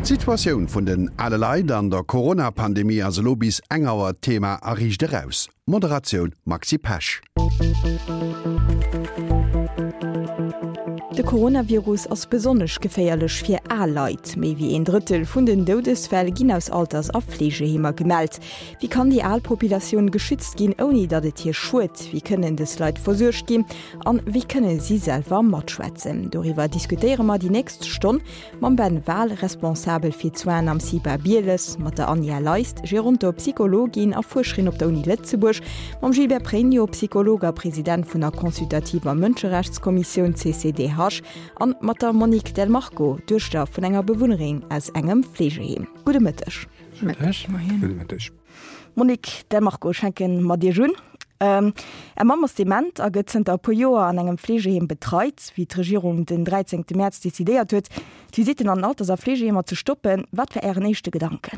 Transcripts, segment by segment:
D'Situatioun vun den ale Leit an der Corona-Pandemie ass elo bis eng Auer d'Thema a Riicht Eraus. Moderatioun Maxi Pesch. De Coronavirus ass besonnesch geféierlech fir al Leit. Méi wéi een Drëttel vun den Doudesfäll ginn aus Alters a Fleegeheemer gemellt. Wéi kann déi al Populatioun geschützt ginn, ouni datt et hir schued? Wéi kënnen dës Leit versuergt ginn an wéi kënne si selwer matschwätzen? Doriwwer diskutéiere mer déi nächst Stonn Mam Ben Wahl, Responsabel fir d'Soinen am CIPA Bieles, mat der Anja Leist, Gerontopsychologin a Fuerscherin op der Uni Lëtzebuerg, mam Gilbert Pregno, Psycholog a President vun der consultativer Mënscherechtskommissioun CCDH an mat der Monique Del Marco, Duechter vun enger Bewunnerin aus engem Fleegeheem. Gudde Mëtteg. Gudde Mëtteg. Monique Del Marco, ech fänke mat Iech un. Är Mamm ass dement a gëtt zënter e puer Joer an engem Fleegeheem betreit. Wéi d'Regierung den 13 Mäerz decidéiert huet, d'Visitten an Alters a Fleegeheemer ze stoppen, wat war Ären éischte Gedanken?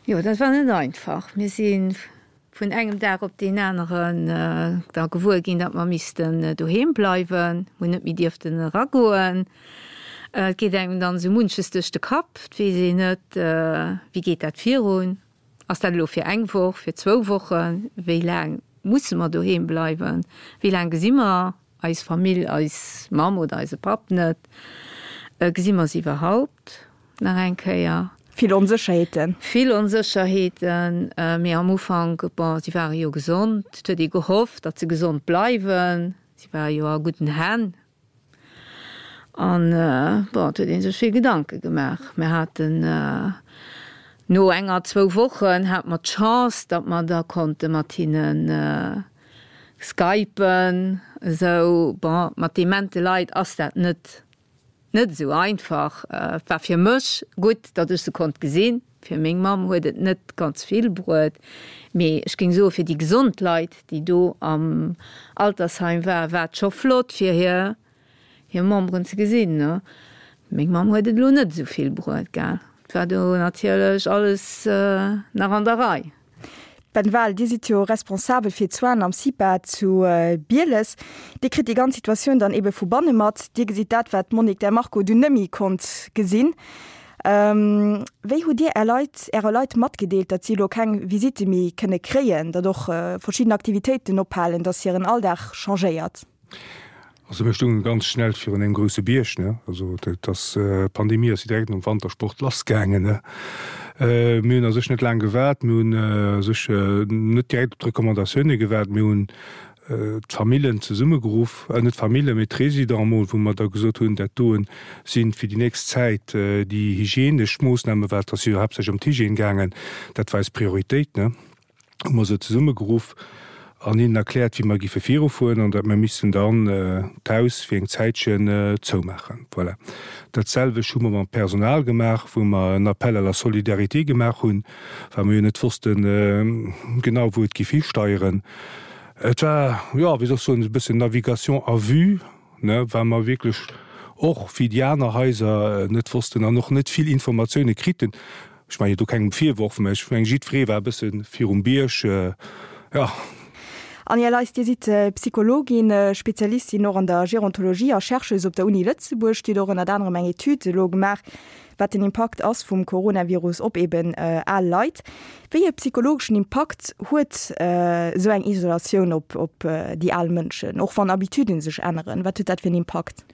Jo, dat war net einfach. Mir si vun engem Dag op deen aneren da gewuer ginn, datt mer missten doheem bleiwen, hunn net méi dierften eragoen. Et geet engem dann esou munches duerch de Kapp, et weess een net, wéi geet dat virun, ass dat elo fir eng Woch, fir zwou Wochen, wéi laang musse mer doheem bleiwen, wéi laang gesi mer eis Famill, eis Mamm oder eise Papp net, gesi mer se iwwerhaupt nach eng Kéier? Vill Onsécherheeten. Vill Onsécherheeten, mee am Ufank, bon, si ware jo gesond, et huet ee gehofft, datt se gesond bleiwen, si ware jo a gudden Hänn. An, bon, et huet ee sech vill Gedanke gemaach. Mir haten no enger, zwou Wochen hate mer d'Chance, datt mer da konnte mat hinne skypen esou. Bon, mat demente Leit ass dat net, net esou einfach. Et war fir mech gutt, datt ech se konnt gesinn. Fir meng Mamm huet et net ganz vill bruet, mee ech géing soe fir déi gesond Leit, déi do am Altersheim waren, war et scho flott fir hir hir Memberen ze gesinn. Meng Mamm huet et elo net esou vill bruet, gell. Et war do natierlech alles nach an der Rei. Ben Wahl, Dir sidd jo responsabel fir d'Soinen am CIPA zu Bieles. Dir kritt déi ganz Situatioun dann ebe vu banne mat. Dir gesitt dat, wat d'Monique Del Marco dunn nëmmi konnt gesinn. Wéi hutt Dir Är Leit, Äre Leit matgedeelt, datt si elo keng Visitte méi kënne kréien, datt och verschidden Aktivitéiten ophalen, datt hiren Alldag changéiert? Also mir stungen ganz schnell virun engem grousse Bierg, ne. Also dat ass, d'Pandemie ass jo direkt nom Wantersport lassgaangen, ne. Mir hunn a sech net laang gewaart, mir hunn a sech net direkt op d'Recommandatioune gewaart, mir hunn d'Famillen zesummegeruff, net d'Famillen, mee d'Résidents emol, wou mer da gesot hunn, dat doen sinn fir déi nächst Zäit déi hygienesch Moossnamen, well et ass jo haaptsächlech ëm d'Hygiène gaangen, dat war eis Prioritéit, ne. Hu mer se zesummegeruff an hinnen erkläert, wéi mer giffe virufueren an datt mer missten dann d'Haus fir eng Zäitchen zoumaachen. Voilà. Dat selwecht hu mer mam Personal gemaach, wou mer en Appel à la solidarité gemaach hunn, well mer jo net wossten genau, wou et giff histeieren. Et war, jo, wéi soll ech soen, e bëssen Navigation à vue, ne, well mer wierklech och, wéi déi aner Haiser, net wossten an och net vill Informatioune kriten. Ech maachen jo do kengem Virworf, mä ech mengen, jiddweree war e bësse virum Bierg, jo. Anja Leist, Dir sidd Psychologin, Spezialistin och an der Gerontologie a Chercheuse op der Uni Lëtzebuerg. Dir hutt och ënnert anerem eng Etüd elo gemaach, wat den Impakt ass vum Coronavirus op eben al Leit. Wéi e psychologeschen Impakt huet esou eng Isolatioun op op déi al Mënschen, och wann Habituden sech änneren? Wat huet dat fir en Impakt?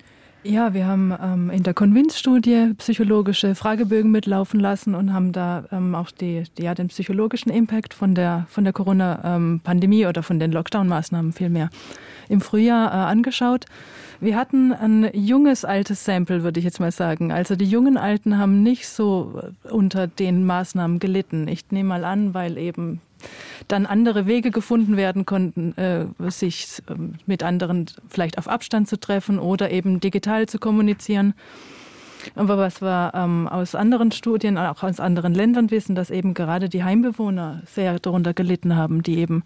Ja, wir haben ähm, in der Convince-Studie psychologische Fragebögen mitlaufen lassen und haben da ähm, auch die, die, ja, den psychologischen Impact von der, von der Corona-Pandemie ähm, oder von den Lockdown-Maßnahmen vielmehr im Frühjahr äh, angeschaut. Wir hatten ein junges altes Sample, würde ich jetzt mal sagen. Also die jungen Alten haben nicht so äh, unter den Maßnahmen gelitten. Ich nehme mal an, weil eben dann andere Wege gefunden werden konnten, äh, sich ähm, mit anderen vielleicht auf Abstand zu treffen oder eben digital zu kommunizieren. Aber was wir ähm, aus anderen Studien, auch aus anderen Ländern wissen, dass eben gerade die Heimbewohner sehr darunter gelitten haben, die eben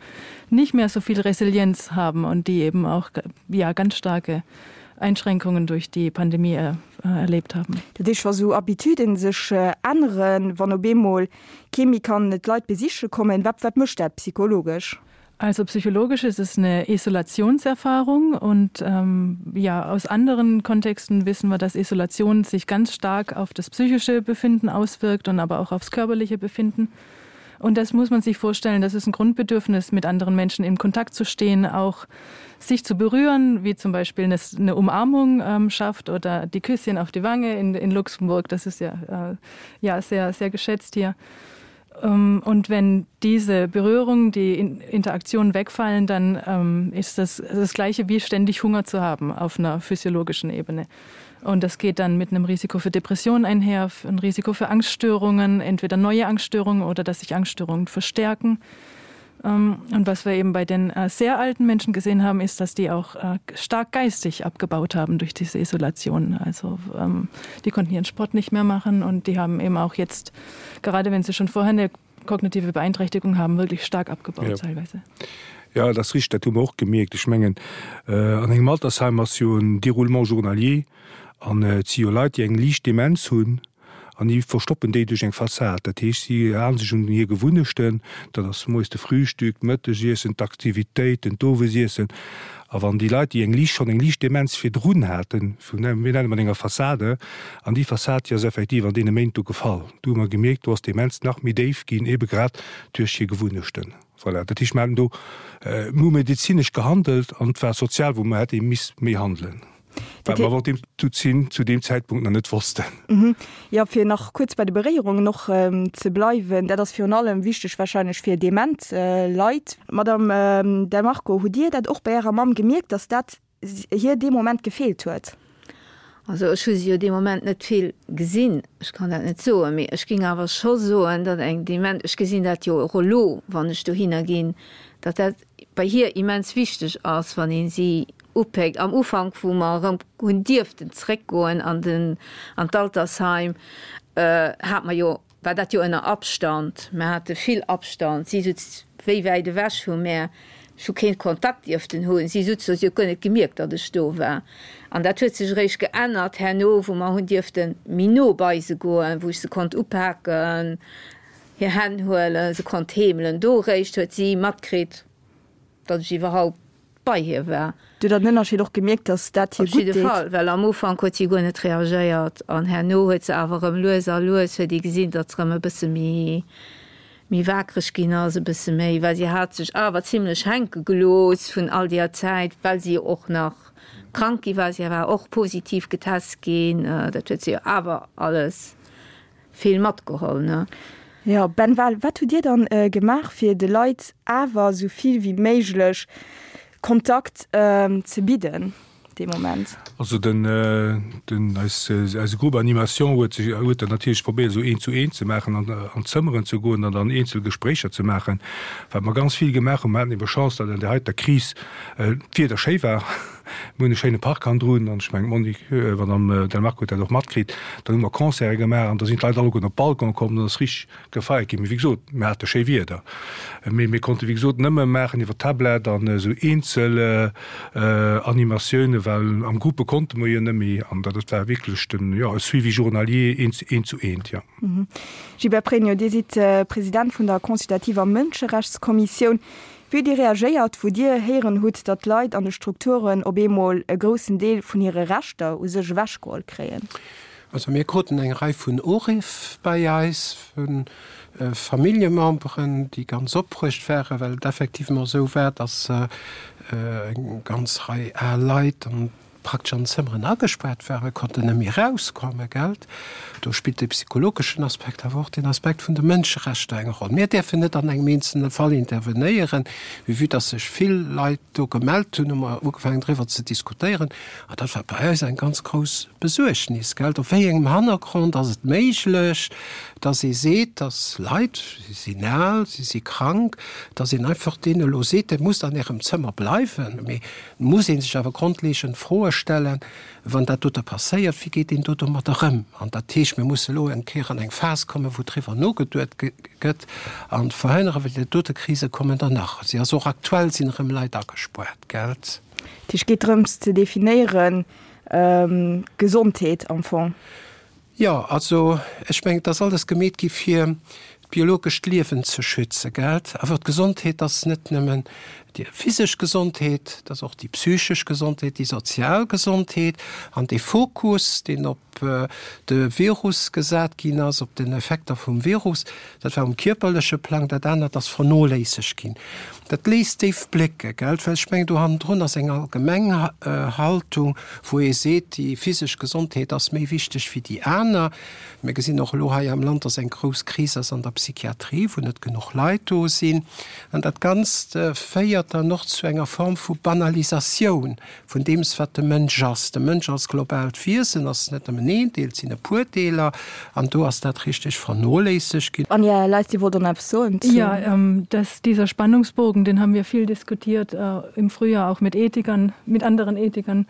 nicht mehr so viel Resilienz haben und die eben auch ja, ganz starke Einschränkungen durch die Pandemie äh, erlebt haben. Dat heescht, wa sou Habituden sech änneren, wann op eemol kee méi kann d'Leit besiche kommen, wat wat mécht dat psychologesch? Also psychologisch ist es eine Isolationserfahrung und ähm, ja aus anderen Kontexten wissen wir, dass Isolation sich ganz stark auf das psychische Befinden auswirkt und aber auch aufs körperliche Befinden. Und das muss man sich vorstellen, das ist ein Grundbedürfnis, mit anderen Menschen in Kontakt zu stehen, auch sich zu berühren, wie zum Beispiel eine, eine Umarmung ähm, schafft oder die Küsschen auf die Wange in, in Luxemburg. Das ist ja, äh, ja sehr, sehr geschätzt hier. Ähm, und wenn diese Berührung, die Interaktion wegfallen, dann ähm, ist das das gleiche wie ständig Hunger zu haben auf einer physiologischen Ebene. Und das geht dann mit einem Risiko für Depressionen einher, ein Risiko für Angststörungen, entweder neue Angststörungen oder dass sich Angststörungen verstärken. Ähm, und was wir eben bei den äh, sehr alten Menschen gesehen haben, ist, dass die auch äh, stark geistig abgebaut haben durch diese Isolation. Also ähm, die konnten ihren Sport nicht mehr machen und die haben eben auch jetzt, gerade wenn sie schon vorher eine kognitive Beeinträchtigung haben, wirklich stark abgebaut ja. teilweise. Ja, das riecht dat hu och gemierkt. Ech mengen äh, an engem Altersheim ass jo en Déroulement journalier an äh, et si jo Leit, déi eng liicht Demenz hunn An déi verstoppen déi duerch eng Fassad. Dat heescht, si halen sech un hir Gewunnechten, dat ass moies de Frühstück, d'Mëttegiessen, d'Aktivitéiten, d'Owesiessen. A wann déi Leit, déi eng liicht, schonn eng liicht Demenz virdrun haten, mir nennen mat enger Fassade, an déi Fassad, déi ass effektiv an deene Méint do gefall. Do hu mer gemierkt, do ass d'Demenz nach méi déif ginn, ebe grad duerch hir Gewunnechten. Voilà, dat heescht, mer haten do, mir hu medezinesch gehandelt an et war sozial, wou mer hätte misst méi handelen. Wat mer awer deem zu deem Zäitpunkt nach net wossten. Jo, fir nach kuerz bei de Beréierungen och ze bleiwen, dat ass virun allem wichteg warscheinlech fir dement Leit. Madame Del Marco, hutt Dir dat och bei Ärer Mamm gemierkt, datt dat hir dee Moment gefeelt huet? Also ech hu si jo dee Moment net vill gesinn, ech kann dat net soen, mee ech géing awer scho soen, datt eng dement, ech gesinn dat jo och elo, wann ech dohinner ginn, datt dat bei hir immens wichteg ass, wann ee si upéckt. Am Ufank, wou mer erëm hunn dierften zréckgoen an den, an d'Altersheim, hat mer jo, war dat jo ënner Abstand. Mer hate vill Abstand. Si sutz wéi wäit ewech vu mär. Ech hu keen Kontakt dierften hunn. Si sutz do, si huet guer net gemierkt, datt ech do war. An dat huet sech eréischt geännert herno, wou mer hunn dierfte méi no bei se goen, wou ech se konnt upaken, hir Hänn huelen, se konnt heemelen. Do eréischt huet si matkritt, datt ech iwwerhaupt bei hir war. Du hutt der den Ënnerscheed och gemierkt, datt dat hir gutt deet? Op jidde Fall, well am Ufank huet si guer net reagéiert an herno huet se awer erëm lues a lues huet ee gesinn, datt se erëm e bësse méi, méi waakreg ginn ass, e bësse méi, well si hat sech awer zimlech hänke gelooss vun all deeër Zäit, well si jo och nach krank gi war. Si war och positiv getest ginn, dat huet si jo awer alles vill matgeholl, ne? Jo, Ben Wahl, wat hutt Dir dann gemaach, fir de Leit awer esou vill wéi méiglech Kontakt ze bidden dee Moment? Also den, den, eis, eise Groupe Animation huet sech, huet dat natierlech probéiert esou eent zu eent ze maachen an an d'Zëmmeren ze goen an dann eenzel Gespréicher ze maachen. Wat mer ganz vill gemaach hunn, mer haten ebe Chance, datt an där heiter Kris d'Wieder schéi war. Mir hunn e schéine Park hannendrun an ech mengen d'Monique, Madame Del Marco huet dat och matkritt. Dann hu mer Concerte gemaach an da sinn d'Leit alleguerten op d'Balcon komm, dann ass richteg gefeiert ginn. Mee wéi gesot, mir hate schéi Wieder. Mee mir konnte wéi gesot nëmme maachen iwwer Tablet an esou eenzel Animatiounen, well am Groupe konnte mer jo net méi. An dat war wierklech den, jo, e Suivi journalier eent, eent zu eent, jo. Gilbert Pregno, Dir sidd President vun der consultativer Mënscherechtskommissioun. Wéi hutt Dir reagéiert, wou Dir héieren hutt, datt d'Leit an de Strukturen op eemol e groussen Deel vun hire Rechter u sech ewechgeholl kréien? Also mir kruten eng Rei vun Uriff bei eis vu Familljememberen, déi ganz opbruecht waren, well et effectivement esou war, datt eng ganz Rei al Leit an praktesch an Zëmmeren agespaart waren, konnten net méi erauskommen, gelt. Do spillt de psychologeschen Aspekt, awer och den Aspekt vun de Mënscherechter eng Roll. Mir däerfen net an engem eenzelne Fall intervenéieren, mee vue dass sech vill Leit do gemellt hunn, hu mer ugefaangen driwwer ze diskutéieren. An dat war bei eis eng ganz grouss Besuergnis, gelt. Op wéi engem Hannergrond ass et méiglech, dass ee seet, dass Leit, si sinn al, si si krank, dass een einfach deene elo seet, Dir musst an Ärem Zëmmer bleiwen? Mee Et muss ee sech awer grondleegend Froe stellen, wann dat dote passéiert, wéi geet een do domadder ëm? An dat heescht, mir musse elo eng Kéier an eng Phas kommen, wou driwwer nogeduet gëtt an verhënnere, well déi dote Krise kommen der nach. Si ass och aktuell, sinn erëm Leit agespuart, gelt? Dat heescht, et geet drëms ze definéieren, Gesondheet am Fong. Jo, also ech mengen, et ass alles gemeet gi fir. d'biologescht Liewen ze schützen, gelt? Awer d'Gesondheet ass net nëmmen déi physesch Gesondheet, et ass och déi psychesch Gesondheet, déi sozial Gesondheet. An dee Fokus, deen op de Virus gesat ginn ass, op den Effekter vum Virus, dat war um kierperleche Plang, dat anert ass vernoléissegt ginn. Dat léisst déif blécke, gelt? Well ech mengen, do hannendrun ass eng allgemeng Haltung, wou ee seet, déi physesch Gesondheet ass méi wichteg wéi déi aner. Mir gesinn och elo hei am Land, dass eng grouss Kris ass an der Psychiatrie, wou net genuch Leit do sinn. An dat Ganzt féiert dann och zu enger Form vu Banalisatioun vun deems, wat de Mënsch ass. De Mënsch als globaalt Wiesen ass net nëmmen een Deel, et sinn e puer Deeler. An do ass dat richteg vernoléissegt ginn. Anja Leist, Dir wollt och nach eppes soen zu. Ja, dass dieser Spannungsbogen, den haben wir viel diskutiert im Frühjahr auch mit Ethikern, mit anderen Ethikern,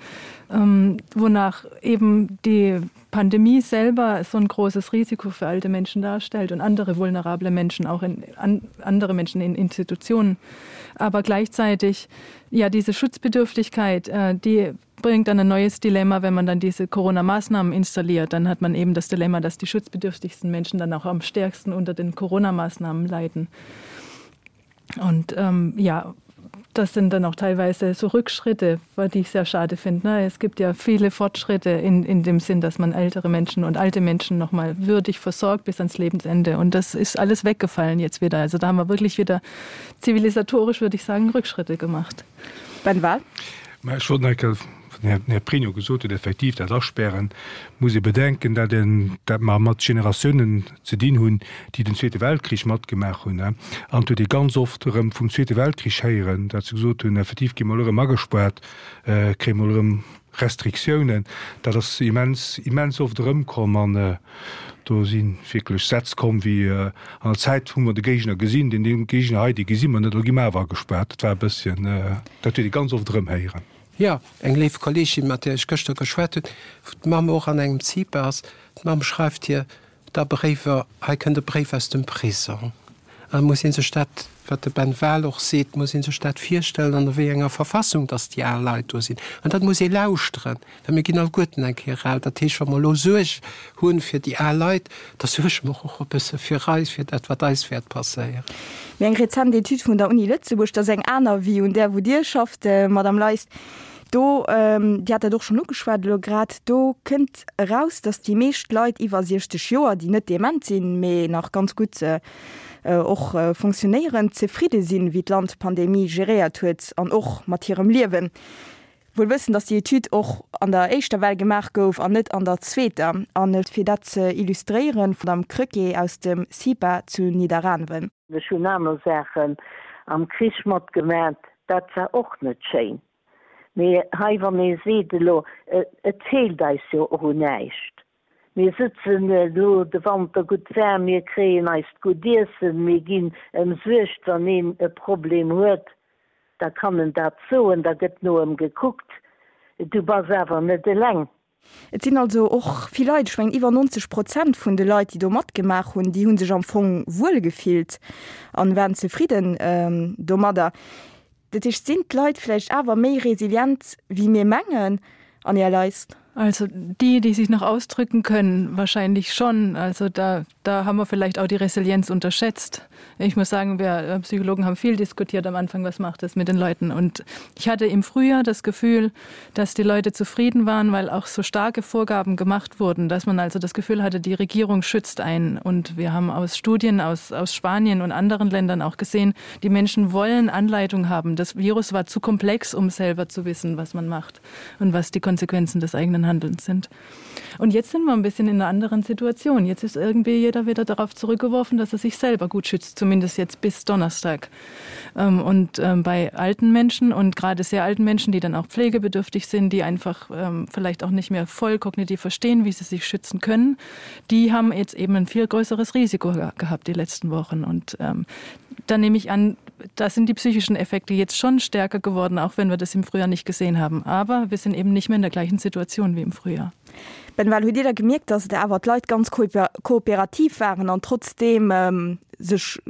wonach eben die Pandemie selber so ein großes Risiko für alte Menschen darstellt und andere vulnerable Menschen auch in an, andere Menschen in Institutionen. Aber gleichzeitig ja diese Schutzbedürftigkeit, äh, die bringt dann ein neues Dilemma, wenn man dann diese Corona-Maßnahmen installiert, dann hat man eben das Dilemma, dass die schutzbedürftigsten Menschen dann auch am stärksten unter den Corona-Maßnahmen leiden. Und ähm, ja, das sind dann auch teilweise so Rückschritte, die ich sehr schade finde. Ne? Es gibt ja viele Fortschritte in, in dem Sinn, dass man ältere Menschen und alte Menschen noch mal würdig versorgt bis ans Lebensende. Und das ist alles weggefallen jetzt wieder. Also da haben wir wirklich wieder zivilisatorisch, würde ich sagen, Rückschritte gemacht. Ben Wahl? Den Här Pregno gesot huet, effektiv dat Aspären, muss ee bedenken, dat een, dat mer mat Generatiounen ze dinn hunn, déi den Zweete Weltkrich matgemaach hunn. An et huet ee ganz oft erëm vum Zweete Weltkrich héieren, dat se gesot hunn, effektiv gi mer elo erëm agespaart, kréie mer elo erëm Restriktiounen. Dat ass immens, immens oft erëmkomm an do si wierklech Sätz komm wéi, An der Zäit hu mer de Géigner gesinn, deen Géigner hei, dee gesi mer net, elo gi mer awer agespaart. Dat war e bësschen, dat huet ee ganz oft erëm héieren. Jo, eng léif Kolleegin, mat där ech gëschter geschwat hunn, wou d'Mamm och an engem CIPA ass, d'Mamm schreift hir da Bréiwer, hei kënnt e Bréif aus dem Prisong. An da muss ee sech dat, wat de Ben Wahl och seet, muss ee sech dat virstellen, an a wéi enger Verfassung dass déi al Leit do sinn. An dat muss ee lauschteren, well mir ginn alleguerten eng Kéier al. Dat heescht, wa mer elo Suerg hu fir déi al Leit, da suerge mer och e bësse fir eis, fir dat, wat eis wäert passéieren. Mee eng rezent Etüd vun der Uni Lëtzebuerg, dat ass eng aner wéi un där wou Dir schafft, Madame Leist, do, Dir hat dat och schonn ugeschwat elo grad, do kënnt eraus, datt déi meescht Leit iwwer 60 Joer, déi net dement sinn, mee nach ganz gutt och fonctionnéieren, zefridde sinn, wéi d'Land d'Pandemie geréiert huet an och mat hirem Liewen. Wuel wëssend, dass déi Etüd och an der éischter Well gemaach gouf an net an der zweeter. An fir dat ze illustréieren, d'Madame Krecké aus dem CIPA zu Nidderaanwen. Ech hunn aner Saachen am Krich matgemat, dat war och net schéin. Mee hei, wann ee seet elo, et feelt eis jo och un näischt, mir sëtzen elo de Wanter gutt waarm, mir kréien eist gutt Iessen, mir ginn ëmsuergt, wann een e Problem huet, da kann en dat soen, da gëtt no ëm gekuckt, du bass awer net eleng. Et sinn also och vill Leit, ech mengen iwwer 90 Prozent vun de Leit, déi do matgemaach hunn, déi hu sech am Fong wuel gefillt an waren zefridden domadder. Dat heescht, sinn d'Leit vläicht awer méi resilient wéi mir mengen, Anja Leist? Also die, die sich noch ausdrücken können, wahrscheinlich schon. Also da, da haben wir vielleicht auch die Resilienz unterschätzt. Ich muss sagen, wir äh, Psychologen haben viel diskutiert am Anfang, was macht es mit den Leuten. Und ich hatte im Frühjahr das Gefühl, dass die Leute zufrieden waren, weil auch so starke Vorgaben gemacht wurden, dass man also das Gefühl hatte, die Regierung schützt einen. Und wir haben aus Studien aus, aus Spanien und anderen Ländern auch gesehen, die Menschen wollen Anleitung haben. Das Virus war zu komplex, um selber zu wissen, was man macht und was die Konsequenzen des eigenen Handelns sind. Und jetzt sind wir ein bisschen in einer anderen Situation. Jetzt ist irgendwie jeder wieder darauf zurückgeworfen, dass er sich selber gut schützt, zumindest jetzt bis Donnerstag. Ähm, und ähm, bei alten Menschen und gerade sehr alten Menschen, die dann auch pflegebedürftig sind, die einfach ähm, vielleicht auch nicht mehr voll kognitiv verstehen, wie sie sich schützen können, die haben jetzt eben ein viel größeres Risiko gehabt die letzten Wochen. Und da nehme ich an, da sind die psychischen Effekte jetzt schon stärker geworden, auch wenn wir das im Frühjahr nicht gesehen haben. Aber wir sind eben nicht mehr in der gleichen Situation wie im Frühjahr. Ben Wahl, hutt Dir da gemierkt, dass et awer d'Leit ganz kooperativ waren an trotzdeem sech.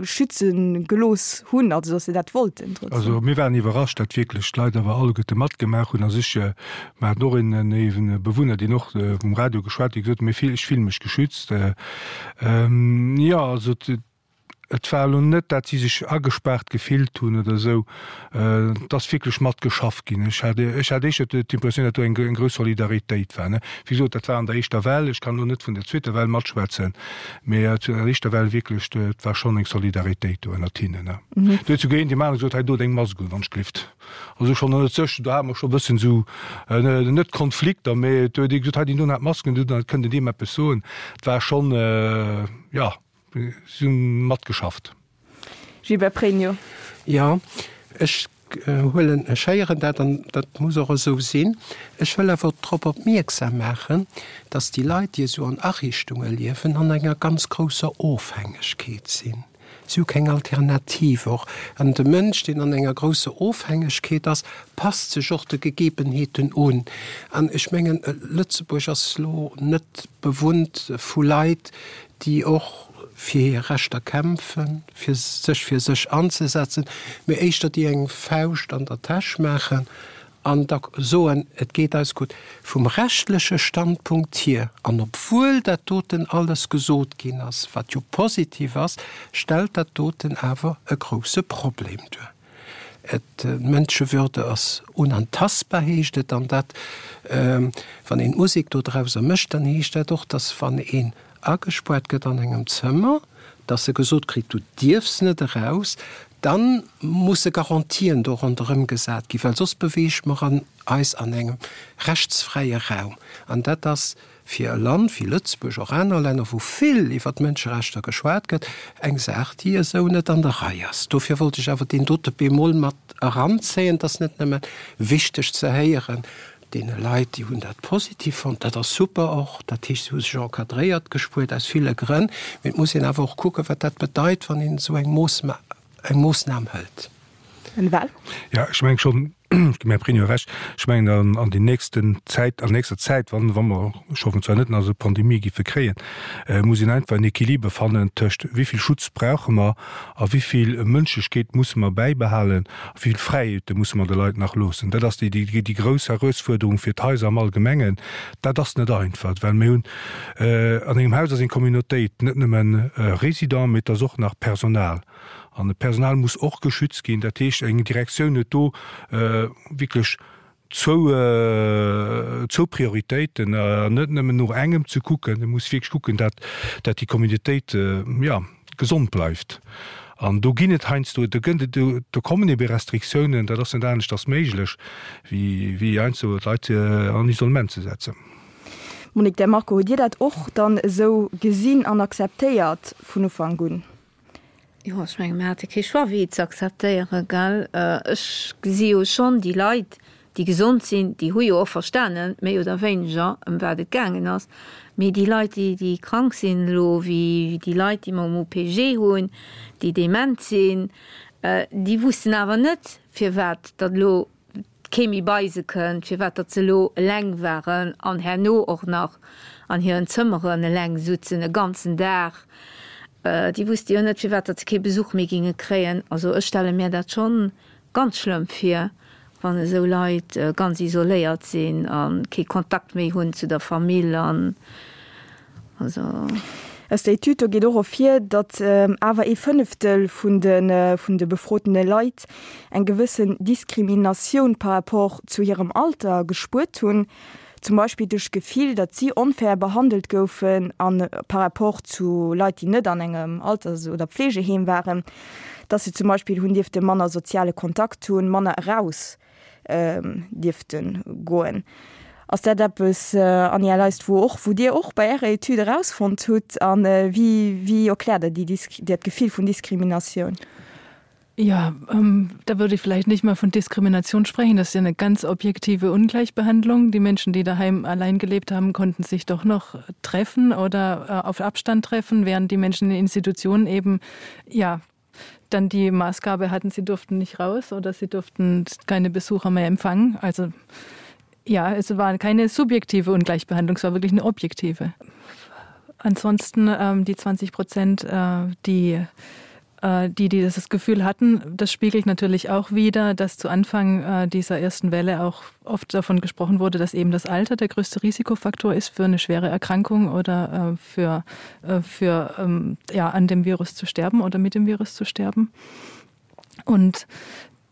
schütze gelooss hunn, also datt se dat wollten trotzdem. Also mir waren iwwerrascht, datt wierklech d'Leit awer alleguerte matgemaach hunn a sech, mer haten och een e Bewunner, deen och um Radio geschwat huet, dee gesot huet, mir, ech fille mech geschützt. Jo, also et war elo net, dat si sech agespaart gefillt hunn oder esou. Et ass wierklech matgeschafft ginn. Ech hat, ech hat éischter d'Impressioun, datt do eng grouss Solidaritéit war. Wéi gesot, dat war an der éischter Well. Ech kann elo net vun der zweeter Well matschwätzen, mee an der éischter Well wierklech, et war schonn eng Solidaritéit do ënnert hinnen. Do huet souguer een deem anere gesot, hei do deng Mask un, wann ech glift. Also schonn ënnert sech, do hate mer scho e bëssen esou, net Konflikter, mee do huet ee gesot, hei deen doen hat d'Mask un, do kënnt en deem eppes soen. Et war schonn, jo. Si hunn matgeschafft. Gilbert Pregno. Jo, ech huelen, ech héieren dat an dat muss och esou sinn. Ech wëll awer drop opmierksam maachen, dass déi Leit, déi esou an Ariichtunge liewen, an enger ganz grousser Ofhängegkeet sinn. Si hu keng Alternativ och. An de Mënsch, deen an enger grousser Ofhängegkeet ass, passt sech och de Gegebenheeten un. An ech mengen, Lëtzebuerg ass elo net bewunnt vu Leit, déi och fir hir Rechter kämpfen, fir sech fir sech anzesetzen, mee éischter déi eng Fauscht an der Täsch maachen an da soen, et geet eis gutt. Vum rechtleche Standpunkt hier, an obwuel dat doten alles gesot ginn ass, wat jo positiv ass, stellt dat doten awer e grouse Problem duer. Et, d'Mënschewürde ass unantastbar, heescht et. An dat, wann een d'Musek do drauser mécht, dann heescht dat och, dass wann een agespuart gëtt an engem Zëmmer, dass e gesot kritt, du dierfs net eraus, da musse Garantien do ronderëm gesat ginn, well soss beweege mer eis an engem rechtsfräie Raum. An dat ass fir e Land wéi Lëtzebuerg, och aner Länner, wou vill iwwer d'Mënscherechter geschwat gëtt, eng Saach, déi esou net an der Rei ass. Dofir wollt ech awer deen dote Bémol mat eranzéien. Et ass net nëmme wichteg ze héieren, deene Leit, déi hunn dat positiv fonnt, dat ass super och, dat heescht, se hu sech encadréiert gespuert aus ville Grënn, mee et muss een awer och kucken, wat dat bedeit, wann een esou eng Moossnam hëlt. En Val? Jo, ech mengen schonn, ech ginn mär Prinio Recht, ech mengen an an déi nächsten Zäit, an nächster Zäit, wann wa mer, ech hoffen zwar net, nach esou Pandemie giffe kréien, muss een einfach en Equiliber fannen tëscht wéi vill Schutz brauche mer a wéi vill Mënschlechkeet musse mer bäibehalen a wéi vill Fräiheete musse mer de Leit nach loossen. Dat ass déi déi grouss Erausfuerderung fir d'Haiser am Allgemengen. Dat ass net einfach, well mir hunn an engem Haus ass eng Communautéit, net nëmmen Résident, mee et ass och nach Personal. An d'Personal muss och geschützt ginn. Dat heescht, eng Direktioun huet do wierklech zwou, zwou Prioritéiten, an net nëmmen no engem ze kucken. E muss wierklech kucken, dat, dat déi Communautéit, jo, gesond bleift. An do ginn et heiansdo, do gëtt et, do kommen ebe Restriktiounen, dat ass net aneschters méiglech, wéi, wéi heiansdo d'Leit an Isolement ze setzen. Monique De Marco, hutt Dir dat och dann esou gesinn an akzeptéiert vun Ufank un? Jo, ech menge mir hate kee Choix wéi et ze akzeptéieren, gell. Ech gesi jo schonn déi Leit, déi gesond sinn, déi hu jo och verstanen, méi oder wéineger, ëm wat et gaangen ass. Mee déi Leit, déi, déi krank sinn elo, wéi déi Leit, déi mer um OPG hunn, déi dement sinn, déi wussten awer net, firwat datt elo kee méi bei se kënnt, firwat datt se elo eleng waren an herno och nach an hiren Zëmmeren eleng sutzen e ganzen Dag. Déi wusste jo net, firwat datt se kee Besuch méi ginge kréien. Also ech stelle mir dat schonn ganz schlëmm vir, wann esou Leit ganz isoléiert sinn a kee Kontakt méi hunn zu der Famill an also. Aus der Etüd do geet och ervir, datt awer ee Fënneftel vun de vun de befrotene Leit eng gewëssen Diskriminatioun par rapport zu hirem Alter gespuert hunn, zum Beispill duerch d'Gefill, datt si onfair behandelt goufen a par rapport zu Leit, déi net an engem Alters oder Pflegeheem waren, datt se zum Beispill hunn dierfte manner soziale Kontakt hunn, manner eraus dierfte goen. Ass dat eppes, Anja Leist, wou och, wou Dir och bei Ärer Etüd erausfonnt hutt? A wéi, wéi erkläert Der déi, dat Gefill vun Diskriminatioun? Ja, da würde ich vielleicht nicht mal von Diskrimination sprechen. Das ist ja eine ganz objektive Ungleichbehandlung. Die Menschen, die daheim allein gelebt haben, konnten sich doch noch treffen oder auf Abstand treffen, während die Menschen in Institutionen eben ja dann die Maßgabe hatten, sie durften nicht raus oder sie durften keine Besucher mehr empfangen. Also ja, es war keine subjektive Ungleichbehandlung, es war wirklich eine objektive. Ansonsten ähm, die 20 Prozent, äh, die. Äh, die, die das Gefühl hatten, das spiegelt natürlich auch wieder, dass zu Anfang äh, dieser ersten Welle auch oft davon gesprochen wurde, dass eben das Alter der größte Risikofaktor ist für eine schwere Erkrankung oder äh, für, für ähm, ja, an dem Virus zu sterben oder mit dem Virus zu sterben. Und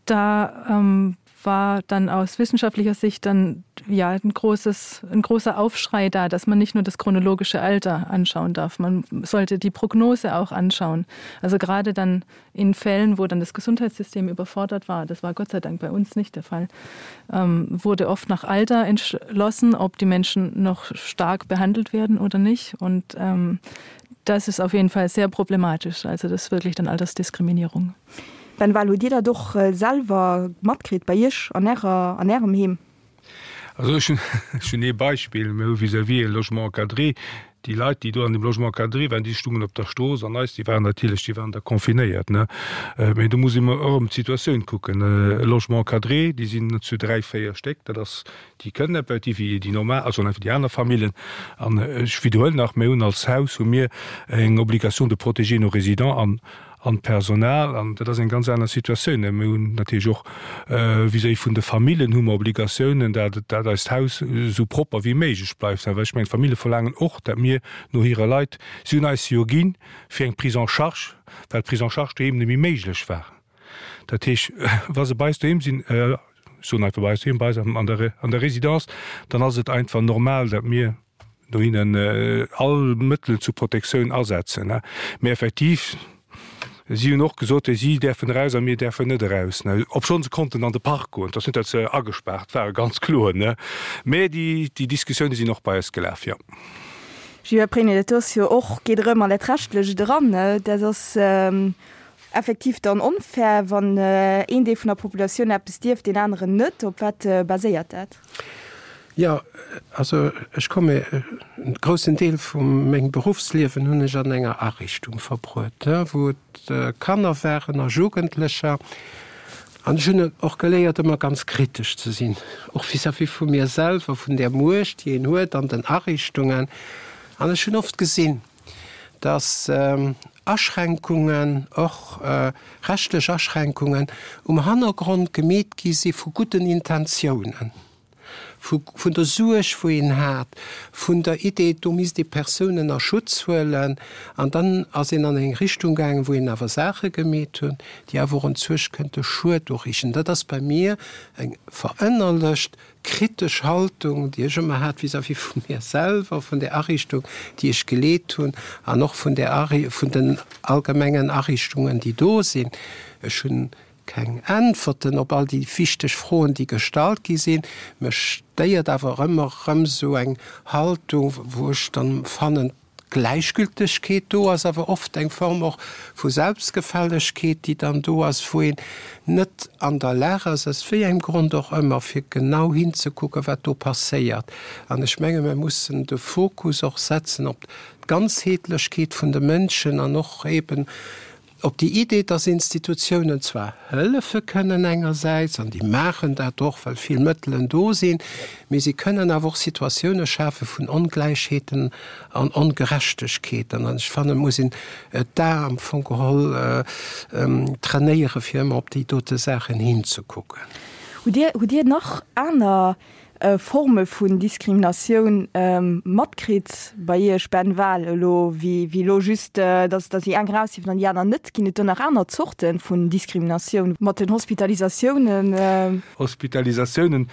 da ähm, war dann aus wissenschaftlicher Sicht dann ja ein großes ein großer Aufschrei da, dass man nicht nur das chronologische Alter anschauen darf. Man sollte die Prognose auch anschauen. Also gerade dann in Fällen, wo dann das Gesundheitssystem überfordert war, das war Gott sei Dank bei uns nicht der Fall, ähm, wurde oft nach Alter entschlossen, ob die Menschen noch stark behandelt werden oder nicht. Und ähm, das ist auf jeden Fall sehr problematisch. Also das ist wirklich dann Altersdiskriminierung. Ben Wahl, hutt Dir dat och selwer matkritt bei Iech an Ärer, an Ärem Heem? Also ech hunn, ech hunn ee Beispill, Mir hu vis-à-vis e Logement encadré. Déi Leit, déi do an deem Logement encadré waren, déi stungen op der Strooss an eis, déi waren natierlech, déi waren da confinéiert, ne. Mee do muss ee mer erëm d'Situatioun kucken. E Logement encadré, déi sinn zu dräi, véier Stéck, dat ass, déi kënnen effektiv wéi déi normal, also einfach déi aner Famillen. An ech widderhuelen nach, mir hunn als Haus hu mir eng Obligation de protéger nos résidents an an d'Personal, an dat ass eng ganz aner Situatioun. Mir hunn natierlech och vis-à-vis vun de Famillen hu mer Obligatiounen, dat dat eist Haus esou propper wéi méiglech bleift. Well ech mengen, d'Famille verlaangen och, dat mir no hire Leit, si hunn eis jo ginn fir eng Prise en charge, well d'Prise en charge doheem net méi méiglech war. Dat heesch, wa se bei eis doheem sinn, ech soen einfach bei eis doheem, bei eis an der an der Résidence, dann ass et einfach normal, dat mir, dohinnen all Mëttelen zur Protektioun asetzen. Mee effektiv, si hunn och gesot, si däerfen eraus a mir däerfen net eraus. Obschonn se konnten an de Park goen. Et ass net, datt se agespaart waren, ganz kloer. Mee déi Diskussioune sinn och bei eis gelaf, jo. Gilbert Pregno, Dat do ass jo och, geet erëm an dat Rechtlecht eran. Dat ass effektiv dann onfair, wann een Deel vun der Populatioun eppes dierf, deen aneren net. Op wat baséiert dat? Jo, also ech komme, e groussen Deel vu mengem Beruffsliewen hunn ech an enger Ariichtung verbruet, wou et Kanner waren a Jugendlecher. An ech hunn och geléiert, ëmmer ganz kritesch ze sinn, och vis-à-vis vu mir selwer, vun där Muecht, déi een huet an den Ariichtungen. An ech hunn oft gesinn, dass Aschränkungen, och rechtlech Aschränkungen, um Hannergrond gemeet gi si vu gudden Intentiounen. Vun der Suerg, wou een hat, vun der Idee, do misst ee Persounen a Schutz huelen. An dann ass een an eng Richtung gaangen, wou een awer Saache gemeet hunn, déi awer och entzwuesch kënnte Schued uriichten. Dat ass bei mir eng verënnerlecht kritesch Haltung, déi ech ëmmer hat vis-à-vis vu mir selwer, vun där Ariichtung, déi ech geleet hunn, an och vun där, vun den allgemengen Ariichtungen, déi do sinn. Ech hunn Keng Äntwerten op all déi wichteg Froen, déi gestallt gi sinn. Mech stéiert awer ëmmer erëm esou eng Haltung, wou ech dann fannen, d'Gläichgültegkeet do ass, awer oft eng Form och vu Selbstgefällegkeet, déi dann do ass, wou een net an der Lag ass, aus wéi engem Grond och ëmmer, fir genau hinzekucken, wat do passéiert. An ech menge mir mussen de Fokus och setzen op d'Ganzheetlechkeet vun de Mënschen an och eeben Op déi Idee, dass Institutiounen zwar hëllefe kënnen engersäits, an déi maachen dat och, well vill Mëttelen do sinn, mee si kënnen awer och Situatioune schafe vun Ongläichheeten an Ongerechtegkeeten. An ech fannen, et muss een d'A am Fong geholl trainéieren, fir ëmmer op déi dote Saachen hinzekucken. Hutt Dir, hutt Dir nach aner Forme vun Diskriminatioun matkritt bei Iech, Ben Wahl, elo wéi elo just, datt datt déi eng eraus dierfen an déi aner net? Ginn et do nach aner Zorte vun Diskriminatioun mat den Hospitalisatiounen? Hospitalisatiounen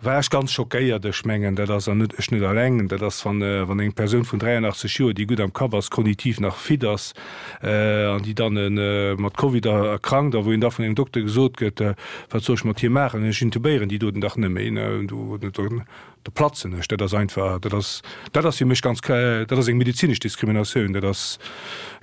war ech ganz schockéiert. Ech mengen, dat ass, an net ech net alleng, dat ass, wann wann eng Persoun vun 83 Joer, déi gutt am Kapp ass, kognitiv nach fit ass, an déi dann mat Covid erkrankt a wou een da vun engem Dokter gesot gëtt, Wat soll ech mat hir maachen, ech intubéieren déi doten dach net méi, do platzen ech. Dat ass einfach, dat ass, dat ass fir mech ganz, dat ass eng medezinesch Diskriminatioun, dat ass,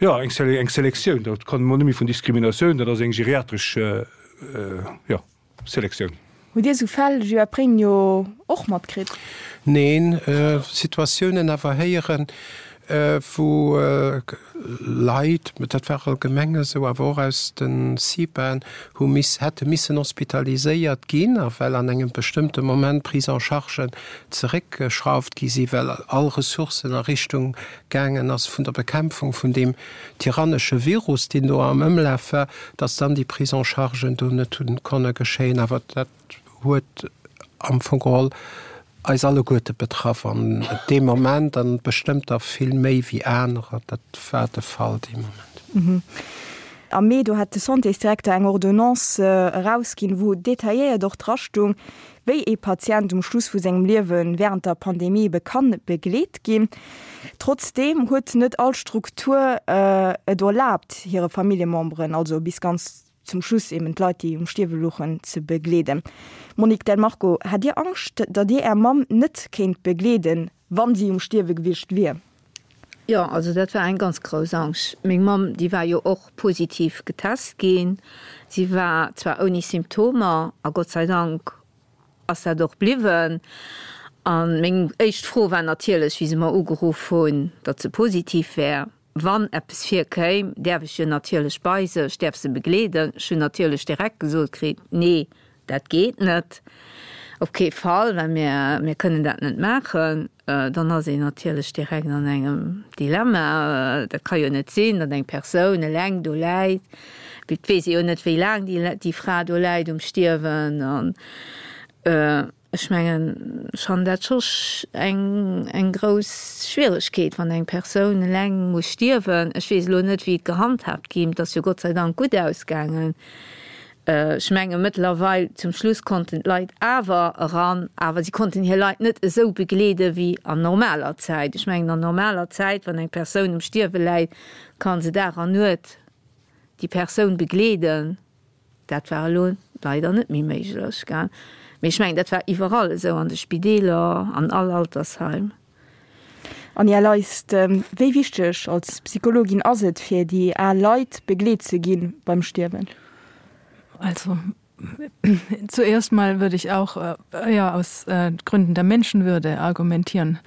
jo, eng Selektioun, dat kann ee mol net méi vun Diskriminatioun, dat ass eng geriatresch, jo. Selektioun. Hutt Dir esou Fäll, Joa Pregno, och matkritt? Neen, Situatiounen awer héieren. Wou Leit, dat war allgemeng esou, awer och aus de CIPAen, hu miss, hätte missen hospitaliséiert ginn, a well an engem bestëmmte Moment d'Prise-en-chargen zeréckgeschrauft gi si well all Ressourcen a Richtung gaangen ass vun der Bekämpfung vun deem tyrannesche Virus, deen do am Ëmlaf war, datt dann déi Prise-en-chargen do net hu konne geschéien. Awer dat huet am Fong geholl eis alleguerte betraff an dee Moment an bestëmmt der vill méi wéi anerer. Dat war de Fall dee Moment. Am Mee, do hat de Santésdirekter eng Ordonnance erausginn, wou detailléiert och drastung, wéi ee Patient um Schluss vu sengem Liewe wärend der Pandemie ebe kann begleet ginn. Trotzdeem huet net all Struktur et erlaabt, hire Familljememberen, also bis ganz zum Schluss eben d'Leit, déi um Stierwe louchen, ze begleeden. Monique Del Marco, Hat Dir Angscht, datt Dir Är Mamm net kéint begleeden, wann si um Stierwe gewiescht wier? Jo, also dat war eng ganz grouss Angscht. Meng Mamm, déi war jo och positiv getest ginn. Si war zwar ouni Symptomer, a Gott sei Dank ass dat och bliwwen. A meng éischt Fro war natierlech, wéi se mer ugeruff hunn, datt se positiv wär, Wann eppes virkéim, däerf ech jo natierlech bei se, ech däerf se begleeden. Ech hunn natierlech direkt gesot kritt, Nee, dat geet net, op kee Fall, well mir, mir kënnen dat net maachen. Dann ass een natierlech direkt an engem Dilemma. Dat ka jo net sinn, datt eng Persoun eleng do läit. Et weess ee jo net, wéi laang déi, déi Fra do läit um Stierwen. An Ech mengen, ech fannen dat scho eng, eng grouss Schwieregkeet, wann eng Persoun eleng muss stierwen. Ech weess elo net, wéi et gehandhaabt ginn. Et ass jo Gott sei Dank gutt ausgaangen. Ech menge mëttlerweil, zum Schluss konnten d'Leit awer eran, awer si konnten hir Leit net esou begleede wéi an normaler Zäit. Ech mengen, an normaler Zäit, wann eng Persoun um Stierwe läit, ka se Dag an Nuet déi Persoun begleeden. Dat war elo leider net méi méiglech, gell. Mee ech mengen, dat war iwwerall esou, an de Spideeler, an all Altersheim. Anja Leist, wéi wichteg als Psychologin ass et, fir déi al Leit begleet ze gi beim Stierwen? Also zuerst mal würde ich auch ja aus Gründen der Menschenwürde argumentieren.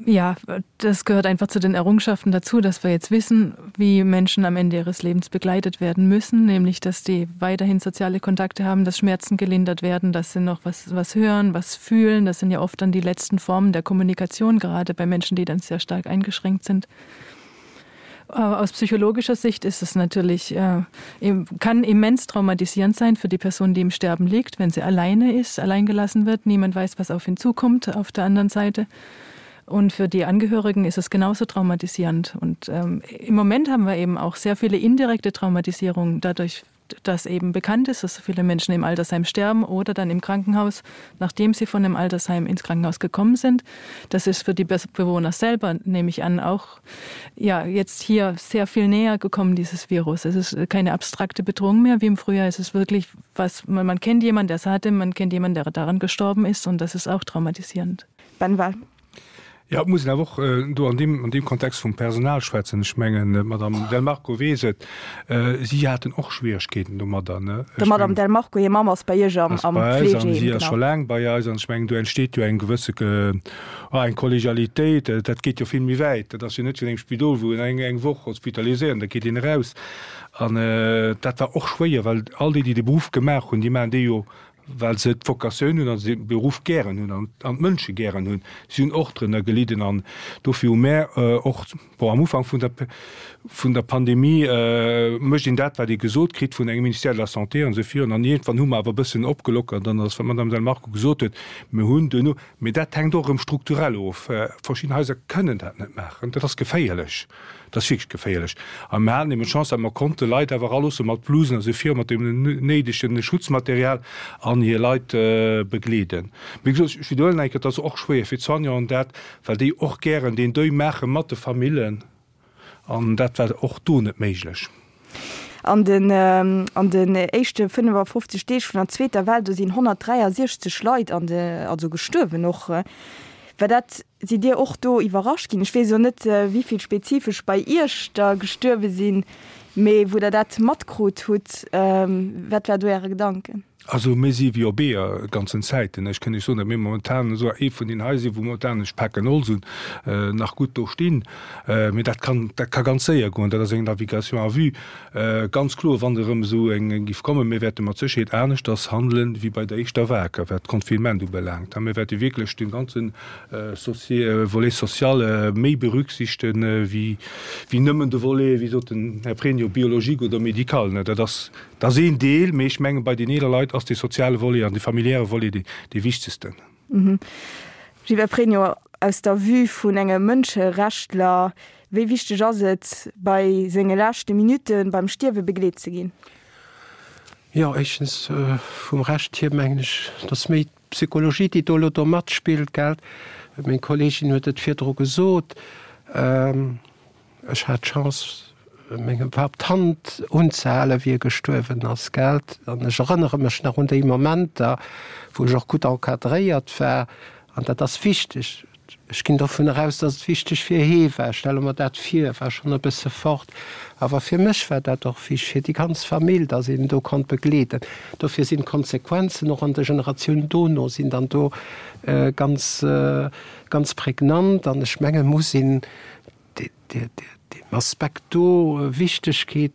Ja, das gehört einfach zu den Errungenschaften dazu, dass wir jetzt wissen, wie Menschen am Ende ihres Lebens begleitet werden müssen, nämlich dass die weiterhin soziale Kontakte haben, dass Schmerzen gelindert werden, dass sie noch was, was hören, was fühlen. Das sind ja oft dann die letzten Formen der Kommunikation, gerade bei Menschen, die dann sehr stark eingeschränkt sind. Aus psychologischer Sicht ist es natürlich äh, kann immens traumatisierend sein für die Person, die im Sterben liegt, wenn sie alleine ist, allein gelassen wird. Niemand weiß, was auf ihn zukommt auf der anderen Seite. Und für die Angehörigen ist es genauso traumatisierend. Und ähm, im Moment haben wir eben auch sehr viele indirekte Traumatisierungen dadurch dass eben bekannt ist, dass so viele Menschen im Altersheim sterben oder dann im Krankenhaus, nachdem sie von dem Altersheim ins Krankenhaus gekommen sind. Das ist für die Bewohner selber, nehme ich an, auch ja, jetzt hier sehr viel näher gekommen, dieses Virus. Es ist keine abstrakte Bedrohung mehr wie im Frühjahr. Es ist wirklich was, man, man kennt jemanden, der es hatte, man kennt jemanden, der daran gestorben ist und das ist auch traumatisierend. Ben Wahl. Jo, et muss een awer och do an deem, an deem Kontext vum Personal schwätzen. Ech mengen, d'Madame Del Marco weess et, si haten och Schwieregkeeten domadder, ne? Der Madame Del Marco hir Mamm ass bei Iech am, am Fleegeheem, genau. Si ass scho laang bei eis an ech mengen, do entsteet jo eng gewësse, oh, eng Kollegialitéit. Dat geet jo vill méi wäit. Dat ass jo net wéi an engem Spidol, wou een eng, eng Woch hospitaliséiert an da geet een eraus. An dat war och schwéier, well all déi, déi de Beruff gemaach hunn, déi maachen dee jo well se d'Vocatioun hunn a se de Beruff gären hunn an d'Mënsche gären hunn. Si hunn och drënner gelidden an dofir hu mär och, bon, am Ufank vun der vun der Pandemie mécht een dat, wat ee gesot kritt vun engem Ministère de la Santé an esou virun. An iergendwann hu mer awer e bëssen opgelockert an ass, wat d'Madame Del Marco gesot huet, mir hunn duerno, mee dat hänkt och erëm strukturell of, verschidden Haiser kënnen dat net maachen, dat ass geféierlech. Dat ass wierklech geféierlech. A mir haten eben d'Chance, datt mer konnte Leit awer eraloosse mat Blusen a sou viru, mat deem néidege Schutzmaterial an hir Leit begleeden. Wéi gesot, ech widderhuelen eng Kéier, et ass och schwéier fir d'Soignanten dat, well déi och gären deen Deuil maache mat de Famillen. An dat war och do net méiglech. An den an den éischte 55 Deeg vun der zweeter Well, do sinn 163 Leit an de also gestuerwen och. War dat, sidd Dir och do iwwerrascht ginn? Ech weess elo net, wéi vill spezifesch bei Iech der gestuerwe sinn. Mee wou Der dat matkrut hutt, wat war do Äre Gedanken? Also mir si wéi op Eeër ganzen Zäiten. Ech kënn Iech soen, datt mir momentan esou ee vun den Haiser sinn, wou momentan, ech paken Holz un, nach gutt do stinn. Mee dat kann, dat ka ganz séier goen. Dat ass eng Navigation à vue. Ganz kloer, wann erëm esou eng géif kommen, mir wäerte mat Sécherheet aneschters handelen, wéi bei der éischter Vague, wat d'Confinement ubelaangt. Mir wäerte wierklech de ganze Volet social méi berücksichten, wéi nëmmen de Volet, wéi sot den Här Pregno, biologique oder médical. Dat ass Dat ass een Deel, mee ech mengen, bei den eeler Leit ass dee soziale Volet an dee familiäre Volet dee wichtegsten. Gilbert Pregno, aus der Vue vun engem Mënscherechtler, wéi wichteg ass et, bei senge leschte Minutte beim Stierwe begleet ze ginn? Jo, éischtens vum Recht hier mengen ech, datt méi d'Psychologie, déi do elo do matspillt, gell. Meng Kolleegin huet et virdru gesot. Ech hat d'Chance, mengem Papp d'Hand unzehalen, wéi e gestuerwen ass, gelt. An ech erënnere mech nach un déi Momenter, wou ech och gutt encadréiert war. An dat ass wichteg. Ech ginn dovun eraus, dass et wichteg fir hee war. Ech stelle mer dat vir, e war schonn e bësse fort. Awer fir mech war dat och wichteg, fir déi ganz Famill, dass een do konnt begleeden. Dofir sinn d'Konsequenzen och an de Generatiounen dono sinn dann do ganz, ganz prägnant. An ech mengen, muss een deem Aspekt do Wichtegkeet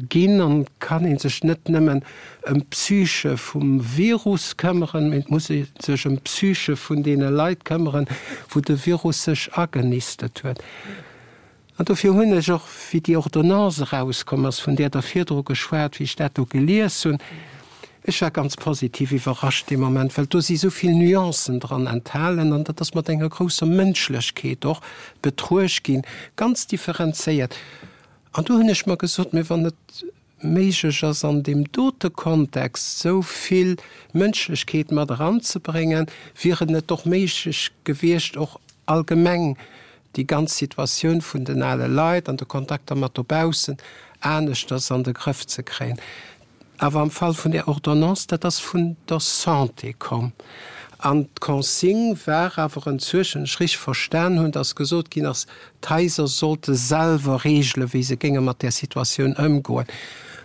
ginn an kann ee sech net nëmmen ëm d'Psyche vum Virus këmmeren, mee et muss ee sech ëm d'Psyche vun deene Leit këmmeren, wou de Virus sech agenistet huet. An dofir hunn ech och, wéi déi Ordonnance erauskomm ass, vun där Der virdru geschwat, wéi ech dat do gelies hunn, Ech war ganz positiv iwwerrascht dee Moment, well do si sou vill Nuancen dran enthalen an dat ass mat enger grousser Mënschlechkeet och betruecht ginn, ganz differenzéiert. An do hunn ech mer gesot, Mee wann et méiglech ass an deem dote Kontext sou vill Mënschlechkeet mat eranzebréngen, wier et net och méiglech gewiescht och allgemeng déi ganz Situatioun vun den ale Leit an de Kontakter mat dobaussen aneschters an de Grëff ze kréien. Awer am Fall vun där Ordonnance, dat ass vun der Santé komm. An d'Consigne war awer enzuechen, ech richtig verstan hunn, dass gesot ginn ass, d'Haiser sollte selwer regelen, wéi se géinge mat där Situatioun ëmgoen.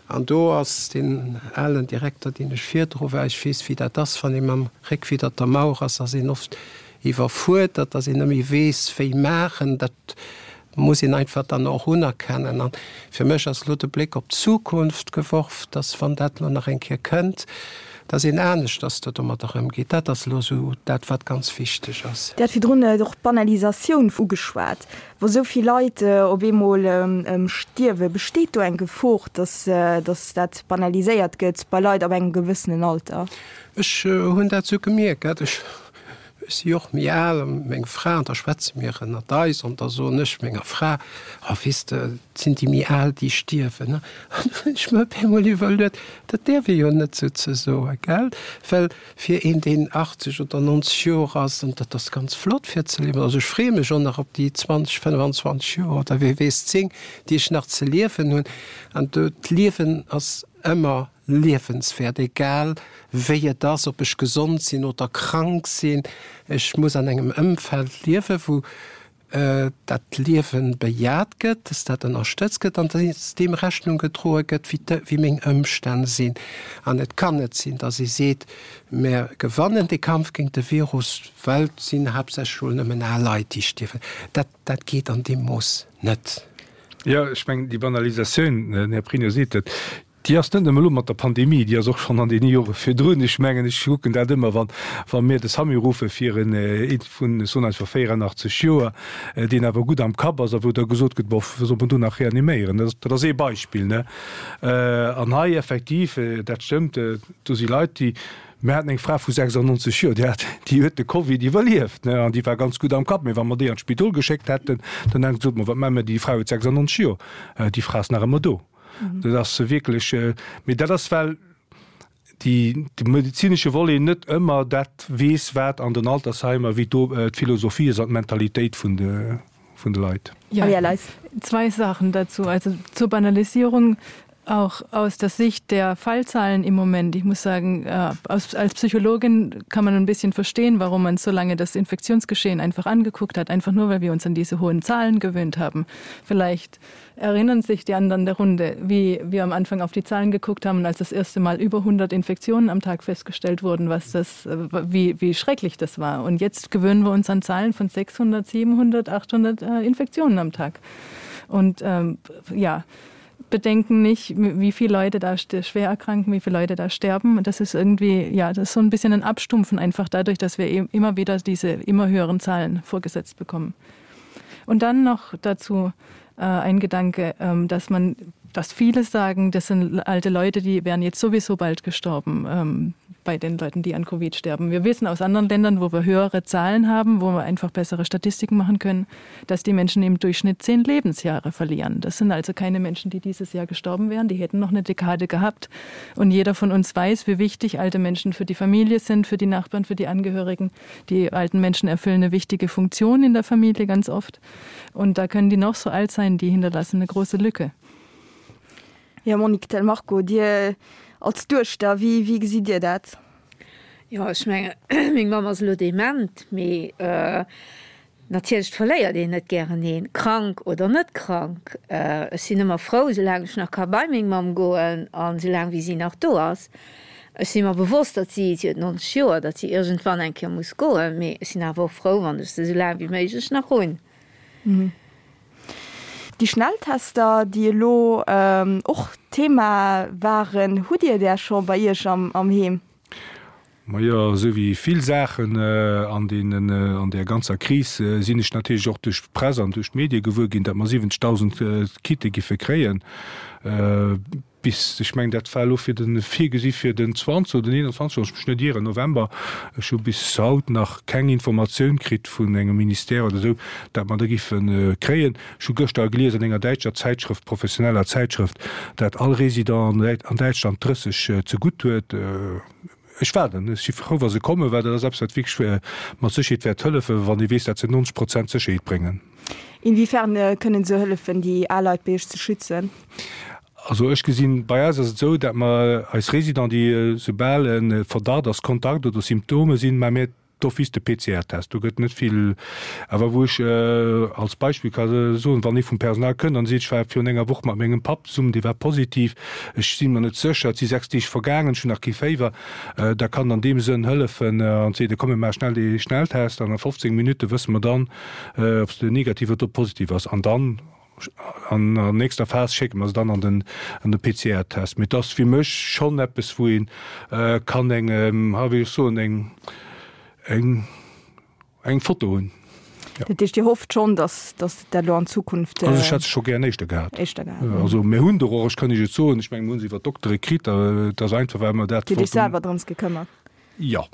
An do ass deen alen Direkter, deen ech virdru war, ech weess, wéi dat ass, wann ee mam Réck widder der Mauer ass, ass een oft iwwerfuerdert, dass een net méi weess, wéi maachen. Dat muss een einfach dann och unerkennen. A fir mech ass elo de Bléck op d'Zukunft geworf, dass, wann dat elo nach eng Kéier kënnt, dass een aneschters do domadder ëmgeet. Dat ass elo esou dat, wat ganz wichteg ass. Dir hat virdrun och d'Banalisatioun ugeschwat. Wa sou vill Leit op eemol stierwen, besteet do eng Gefor, dass dat banaliséiert gëtt bei Leit ab engem gewëssenen Alter? Ech hunn dat esou gemierkt. Ech Ech si och méi al, a meng Fra, an da schwätze mir ënnert eis, an da soen ech menger Fra, Oh, weess de, et sinn déi méi al, déi stierwen. An du hunn ech mer op eemol iwwerluet, dat däerf ee jo net sou ze soen, gell? Well fir een, deen 80 oder 90 Joer ass, an dat ass ganz flott fir ze liewen, also ech freeë mech och nach op déi 20, 25 Joer oder wie weess 10, déi ech nach ze liewen hunn, an do, d'Liewen ass ëmmer liewenswäert, egal wéi et ass, ob ech gesond sinn oder krank sinn. Ech muss an engem Ëmfeld liewen, wou dat Liewe bejaht gëtt, dass dat ënnerstëtzt gëtt an dass deem Rechnung gedroe gëtt, wéi meng Ëmstänn sinn. An et kann net sinn, dass ee seet, Mir gewannen dee Kampf géint de Virus, well et sinn haaptsächlech elo nëmmen al Leit, déi stierwen. Dat, dat geet an deem Mooss net. Jo, ech mengen, déi Banalisatioun, den Här Pregno seet et, Déi ass net nëmme elo mat der Pandemie, déi ass och schonn an deene Jore virdrun. Ech mengen, ech kucken dat ëmmer, wann, wa mir de SAMU ruffe fir en ee vun, ech soen einfach 84 Joer, deen awer gutt am Kapp ass a wou da gesot gëtt, bon, wou soll mer do nach reaniméieren? Dat ass, dat ass ee Beispill, ne? An hei effektiv, dat stëmmt, do si Leit, déi, mir haten eng Fra vu 96 Joer, déi hat, déi huet de Covid iwwerlieft, ne, an déi war ganz gutt am Kapp. Mee wa mer déi an d'Spidol geschéckt hätten, dann hätten se gesot, ma wat maache mer, déi Fra huet 96 Joer, déi Fra ass nach ëmmer do. Dat ass wierklech, mee dat ass well déi de medezinesche Volet net ëmmer dat weess, wat an den Altersheimer, wéi do d'Philosophie ass an d'Mentalitéit vun de vun de Leit. Ja, zwei Sachen dazu. Also zur Banalisierung. Auch aus der Sicht der Fallzahlen im Moment. Ich muss sagen, äh, als, als Psychologin kann man ein bisschen verstehen, warum man so lange das Infektionsgeschehen einfach angeguckt hat, einfach nur, weil wir uns an diese hohen Zahlen gewöhnt haben. Vielleicht erinnern sich die anderen der Runde, wie wir am Anfang auf die Zahlen geguckt haben, als das erste Mal über 100 Infektionen am Tag festgestellt wurden, was das, äh, wie, wie schrecklich das war. Und jetzt gewöhnen wir uns an Zahlen von 600, 700, 800 äh, Infektionen am Tag. Und ähm, ja, bedenken nicht, wie viele Leute da schwer erkranken, wie viele Leute da sterben. Und das ist irgendwie ja, das ist so ein bisschen ein Abstumpfen einfach dadurch, dass wir eben immer wieder diese immer höheren Zahlen vorgesetzt bekommen. Und dann noch dazu äh, ein Gedanke, ähm, dass man dass viele sagen, das sind alte Leute, die wären jetzt sowieso bald gestorben ähm, bei den Leuten, die an Covid sterben. Wir wissen aus anderen Ländern, wo wir höhere Zahlen haben, wo wir einfach bessere Statistiken machen können, dass die Menschen im Durchschnitt zehn Lebensjahre verlieren. Das sind also keine Menschen, die dieses Jahr gestorben wären, die hätten noch eine Dekade gehabt. Und jeder von uns weiß, wie wichtig alte Menschen für die Familie sind, für die Nachbarn, für die Angehörigen. Die alten Menschen erfüllen eine wichtige Funktion in der Familie ganz oft. Und da können die noch so alt sein, die hinterlassen eine große Lücke. Jo, Monique Del Marco, Dir als Duechter, wéi, wéi gesitt Dir dat? Jo, ech mengen, meng Mamm ass elo dement, mee natierlech verléiert een net gären een, krank oder net krank. Ech sinn ëmmer frou, soulaang ech nach ka bei meng Mamm goen an soulaang wéi si nach do ass. Ech si mer bewosst, datt si, si huet 90 Joer, datt si iergendwann eng Kéier muss goen, mee ech sinn awer och frou, wann ech se soulaang wéi méiglech nach hunn. Déi Schnelltester, déi elo och Thema waren, hutt Dir där scho bei Iech am Heem? Majo, esou wéi vill Saachen an deenen, an där ganzer Kris sinn ech natierlech och duerch d'Press an duerch d'Medie gewuer ginn, datt mer 70.000 Kitte giffe kréien. Bis, ech mengen, dat war elo fir de virgesi fir den 20 oder den 21, wann ech mech net ieren, November. Ech hu bis haut nach keng Informatioun kritt vun engem Ministère oder esou, dat mer der giffe kréien. Ech hu gëschter gelies an enger däitscher Zäitschrëft, professioneller Zäitschrëft, dat all Résident an Däitschland 30 zegutt huet. Ech waarden, ech si frou, wa se kommen, well dat ass eppes, wat wierklech mat Sécherheet wäert hëllefen, wann ee weess, dat se 90 Prozent Sécherheet bréngen. Inwiefern kënnen se hëllefen, déi al Leit bei Iech ze schützen? Also ech gesinn, bei eis ass et esou, dat mer eis Résidents, déi soubal e Verdacht ass, Kontakt oder Symptome sinn, maache mir d'office de PCR-Test. Do gëtt net vill, awer wou ech als Beispill ka soen, wann ee vum Personal kënnt an seet, ech war virun enger Woch mat mengem Papp zesummen, dee war positiv, ech si mer net sécher, et si 6 Deeg vergaangen, ech hunn nach kee Féiwer, da kann an deem Sënn hëllefen an seet, komm mir maache schnell dee Schnelltest an a 15 Minutte wësse mer dann, ob s de negativ oder positiv ass an dann An der nächster Phas schécke mer se dann an den an de PCR-Test. Mee et ass fir mech schonn eppes, wou ee kann eng, ha wéi ech soen, eng eng eng Foto hunn. Jo. Dat heescht, Dir hofft schonn, datt datt dat elo an Zukunft. Also ech hätt se scho gären éischter gehat. Éischter gehat. Also mir hunn der och, ech kann Iech et soen, ech menge mir hu se iwwer d'Doktere kritt, et ass einfach well mer dat Dir hutt Iech selwer drëms gekëmmert. Jo.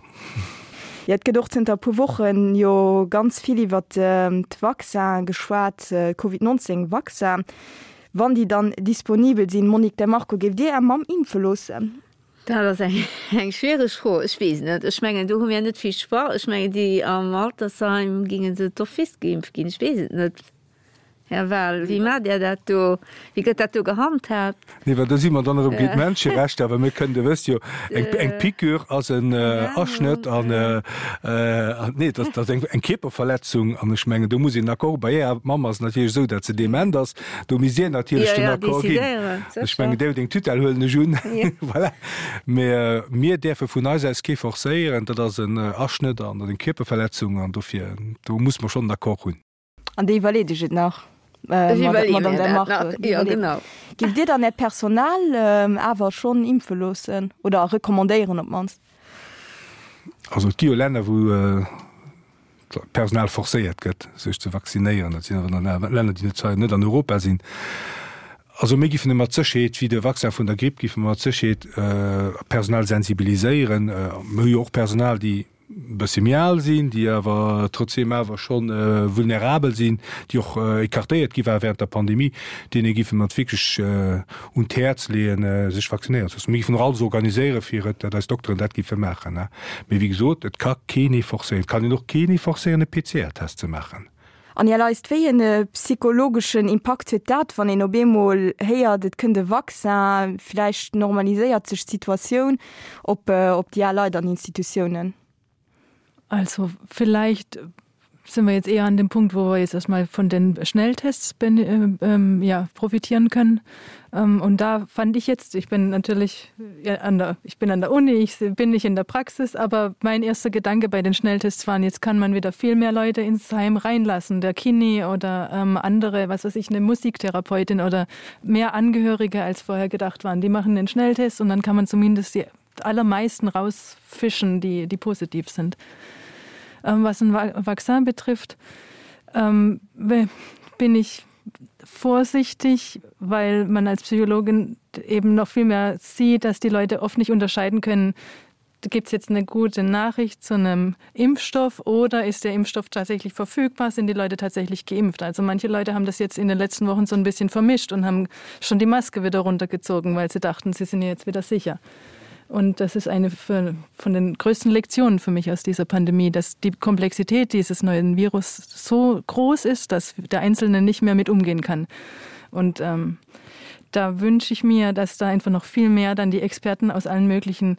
Jo, et gëtt och zënter e puer Wochen jo ganz vill iwwer d'Vaccin geschwat, Covid 19 Vaccin. Wann déi dann disponibel sinn, Monique De Marco, géift Dir Är Mamm impfe loossen? Dat ass eng schwiereg Fro. Ech weess net. Ech mengen, do hu mir net vill Choix. Ech mengen, déi am Altersheim géinge se d'office geimpft ginn. Ech weess et net. Här Wahl, wéi maacht Där dat do? Wéi gëtt dat do gehandhaabt? Nee, well do si mer dann erëm géint d'Menscherechter, well mir kënnen, Dir wësst jo, eng, eng Piqûre ass en Aschnëtt an, nee, dat ass eng, eng Kierperverletzung an ech mengen, do muss een Accord, bei Ärer Mamm ass et natierlech esou, datt se dement ass, do misst Dir natierlech den Accord ginn. Ech mengen, Dir hutt eng Tutelle, huelen ech un. Voilà. Mä mir däerfe vun eis aus kee forcéieren, dat ass en Aschnëtt an eng Kierperverletzung an dofir, do muss mer schonn en Accord hunn. An Dir iwwerleet Iech et nach, Madame Del Marco? Jo, genau. Giff Dir dann Äert Personal awer schonn impfe loossen oder recommandéieren op d'mannst? Also et gi jo Länner, wou d'Personal forcéiert gëtt, sech ze vaccinéieren. Dat sinn awer dann Länner, déi net, net an Europa sinn. Also mir giffen mat Sécherheet, wéi de Vaccin vun der Gripp, giffe mer mat Sécherheet d'Personal sensibiliséieren. Mir hu jo och Personal, déi e bësse méi al sinn, déi awer trotzdeem awer scho vulnerabel sinn, déi och écartéiert gi ware während der Pandemie, deene géife mer et wierklech un d'Häerz leeën, sech vaccinéieren ze loossen. Mir géifen och alles organiséieren, fir et, datt eis Dokteren dat géife maachen. Mee wéi gesot, et ka keen ee forcéieren. Et kann een och keen ee forcéieren, e PCR-Test ze maachen. An Här Leist, wéi e psychologeschen Impakt huet dat, wann een op eemol héiert, et kënnt e Vaccin, vläicht normaliséiert sech d'Situatioun, op op déi al Leit an Institutiounen? Also vielleicht sind wir jetzt eher an dem Punkt, wo wir jetzt erstmal von den Schnelltests äh, ähm, ja, profitieren können. Ähm, und da fand ich jetzt, ich bin natürlich ja, an der, ich bin an der Uni, ich bin nicht in der Praxis, aber mein erster Gedanke bei den Schnelltests waren, jetzt kann man wieder viel mehr Leute ins Heim reinlassen, der Kini oder ähm, andere, was weiß ich, eine Musiktherapeutin oder mehr Angehörige als vorher gedacht waren. Die machen den Schnelltest und dann kann man zumindest die allermeisten rausfischen, die, die positiv sind. Ähm, was ein Vaccin betrifft, ähm, bin ich vorsichtig, weil man als Psychologin eben noch viel mehr sieht, dass die Leute oft nicht unterscheiden können, gibt es jetzt eine gute Nachricht zu einem Impfstoff oder ist der Impfstoff tatsächlich verfügbar, sind die Leute tatsächlich geimpft? Also manche Leute haben das jetzt in den letzten Wochen so ein bisschen vermischt und haben schon die Maske wieder runtergezogen, weil sie dachten, sie sind jetzt wieder sicher. Und das ist eine von den größten Lektionen für mich aus dieser Pandemie, dass die Komplexität dieses neuen Virus so groß ist, dass der Einzelne nicht mehr mit umgehen kann. Und ähm, da wünsche ich mir, dass da einfach noch viel mehr dann die Experten aus allen möglichen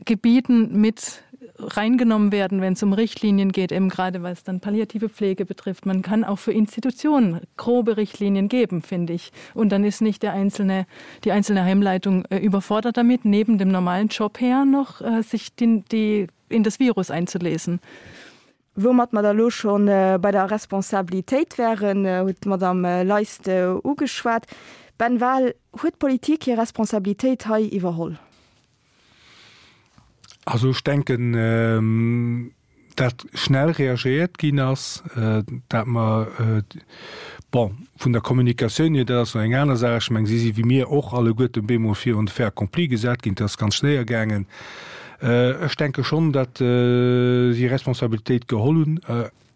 Gebieten mit reingenommen werden, wenn es um Richtlinien geht, eben gerade was dann palliative Pflege betrifft. Man kann auch für Institutionen grobe Richtlinien geben, finde ich. Und dann ist nicht der einzelne, die einzelne Heimleitung äh, überfordert damit, neben dem normalen Job her noch äh, sich die, die, in das Virus einzulesen. Woumat mer da lo scho bei der Responsabilitéit wären, huet d'Madame Leist ugeschwat. Ben Wahl, huet d'Politik hir Responsabilitéit hei iwwerholl? Also ech denken, dat schnell reagéiert ginn ass, dat mer, bon, vun der Kommunikatioun hier, dat ass nach eng aner Saach, ech mengen, si si wéi mir och alleguerten bemol virun de Fait accompli gesat ginn, dat ass ganz schnéier gaangen. Ech denke schonn, dat si Responsabilitéit geholl hunn,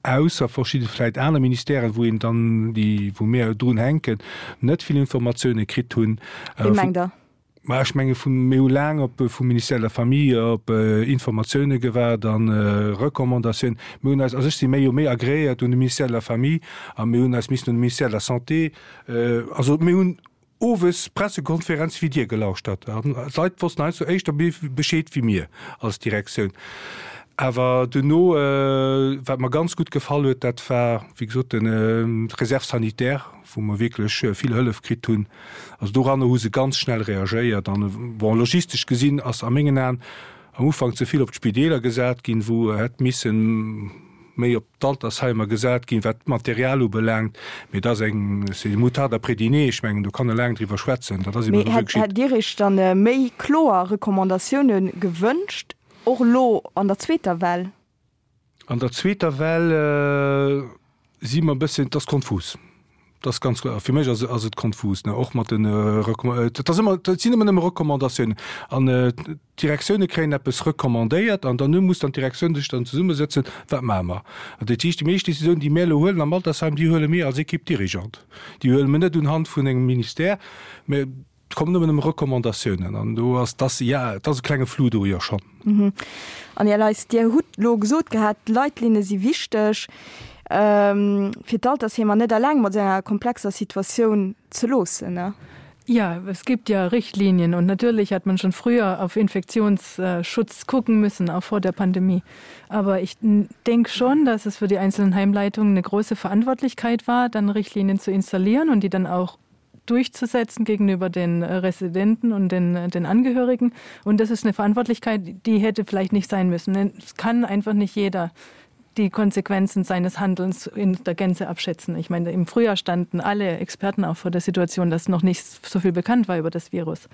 ausser verschidde vläit aner Ministèren, wou een dann déi, wou mir drun hänken, net vill Informatioune kritt hunn. Wéi mengt Der? Mä ech menge vun, mir hu laang op vum Ministère de la Famille op Informatioune gewaart a Recommandatiounen. Mir hunn eis, also ech si méi jo méi agréiert un de Ministère de la Famille a mir hunn eis missen un de Ministère de la Santé, also mir hunn owes Pressekonferenze wéi Dir gelauschtert an d'Leit wossten heiansdo éischter Bescheed wéi mir als Direktioun. Awer duerno, wat mer ganz gutt gefall huet, dat war wéi gesot den d'Réserve sanitaire, wou mer wierklech vill Hëllef kritt hunn. Also doranner hu se ganz schnell reagéiert. An, bon, logistesch gesinn ass a mengen Aen am Ufank ze vill op d'Spideeler gesat ginn, wou hätt missen méi op d'Altersheimer gesat ginn, wat d'Material ubelaangt. Mee dat ass eng, c'est une moutarde après dîner, ech mengen, do kann e laang driwwer schwätzen. Dat ass eben esou geschitt. Mee hätt Dir Iech dann méi kloer Recommandatioune gewënscht, och elo an der zweeter Well? An der zweeter Well si mer e bësschen, et ass konfus. Et ass ganz kloer, fir mech ass ass et konfus, ne, och mat de Recomm-, et ass ëmmer, et sinn ëmmer nëmme Recommandatiounen an d'Direktioune kréien eppes recommandéiert an dann muss dann d'Direktioun sech dann zesummesëtzen, wat maache mer? An dat heescht, déi meescht Décisionen, déi mir elo huelen am Altersheim, déi huele mir als Équipe dirigeante, déi huele mir net unhand vun engem Ministère, mä Et kommen ëmmer nëmme Recommandatiounen an do ass, dass, ja, et ass e klenge Flou do, jo schonn. An Här Leis, Dir hutt elo gesot gehat, d'Leitlinne si wichteg, fir d'Altersheemer net eleng mat esou enger komplexer Situatioun ze loossen, ne? Ja, es gibt ja Richtlinien und natürlich hat man schon früher auf Infektionsschutz gucken müssen, auch vor der Pandemie. Aber ich denke schon, dass es für die einzelnen Heimleitungen eine große Verantwortlichkeit war, dann Richtlinien zu installieren und die dann auch durchzusetzen gegenüber den äh, Residenten und den, äh, den Angehörigen. Und das ist eine Verantwortlichkeit, die hätte vielleicht nicht sein müssen. Denn es kann einfach nicht jeder die Konsequenzen seines Handelns in der Gänze abschätzen. Ich meine, im Frühjahr standen alle Experten auch vor der Situation, dass noch nicht so viel bekannt war über das Virus.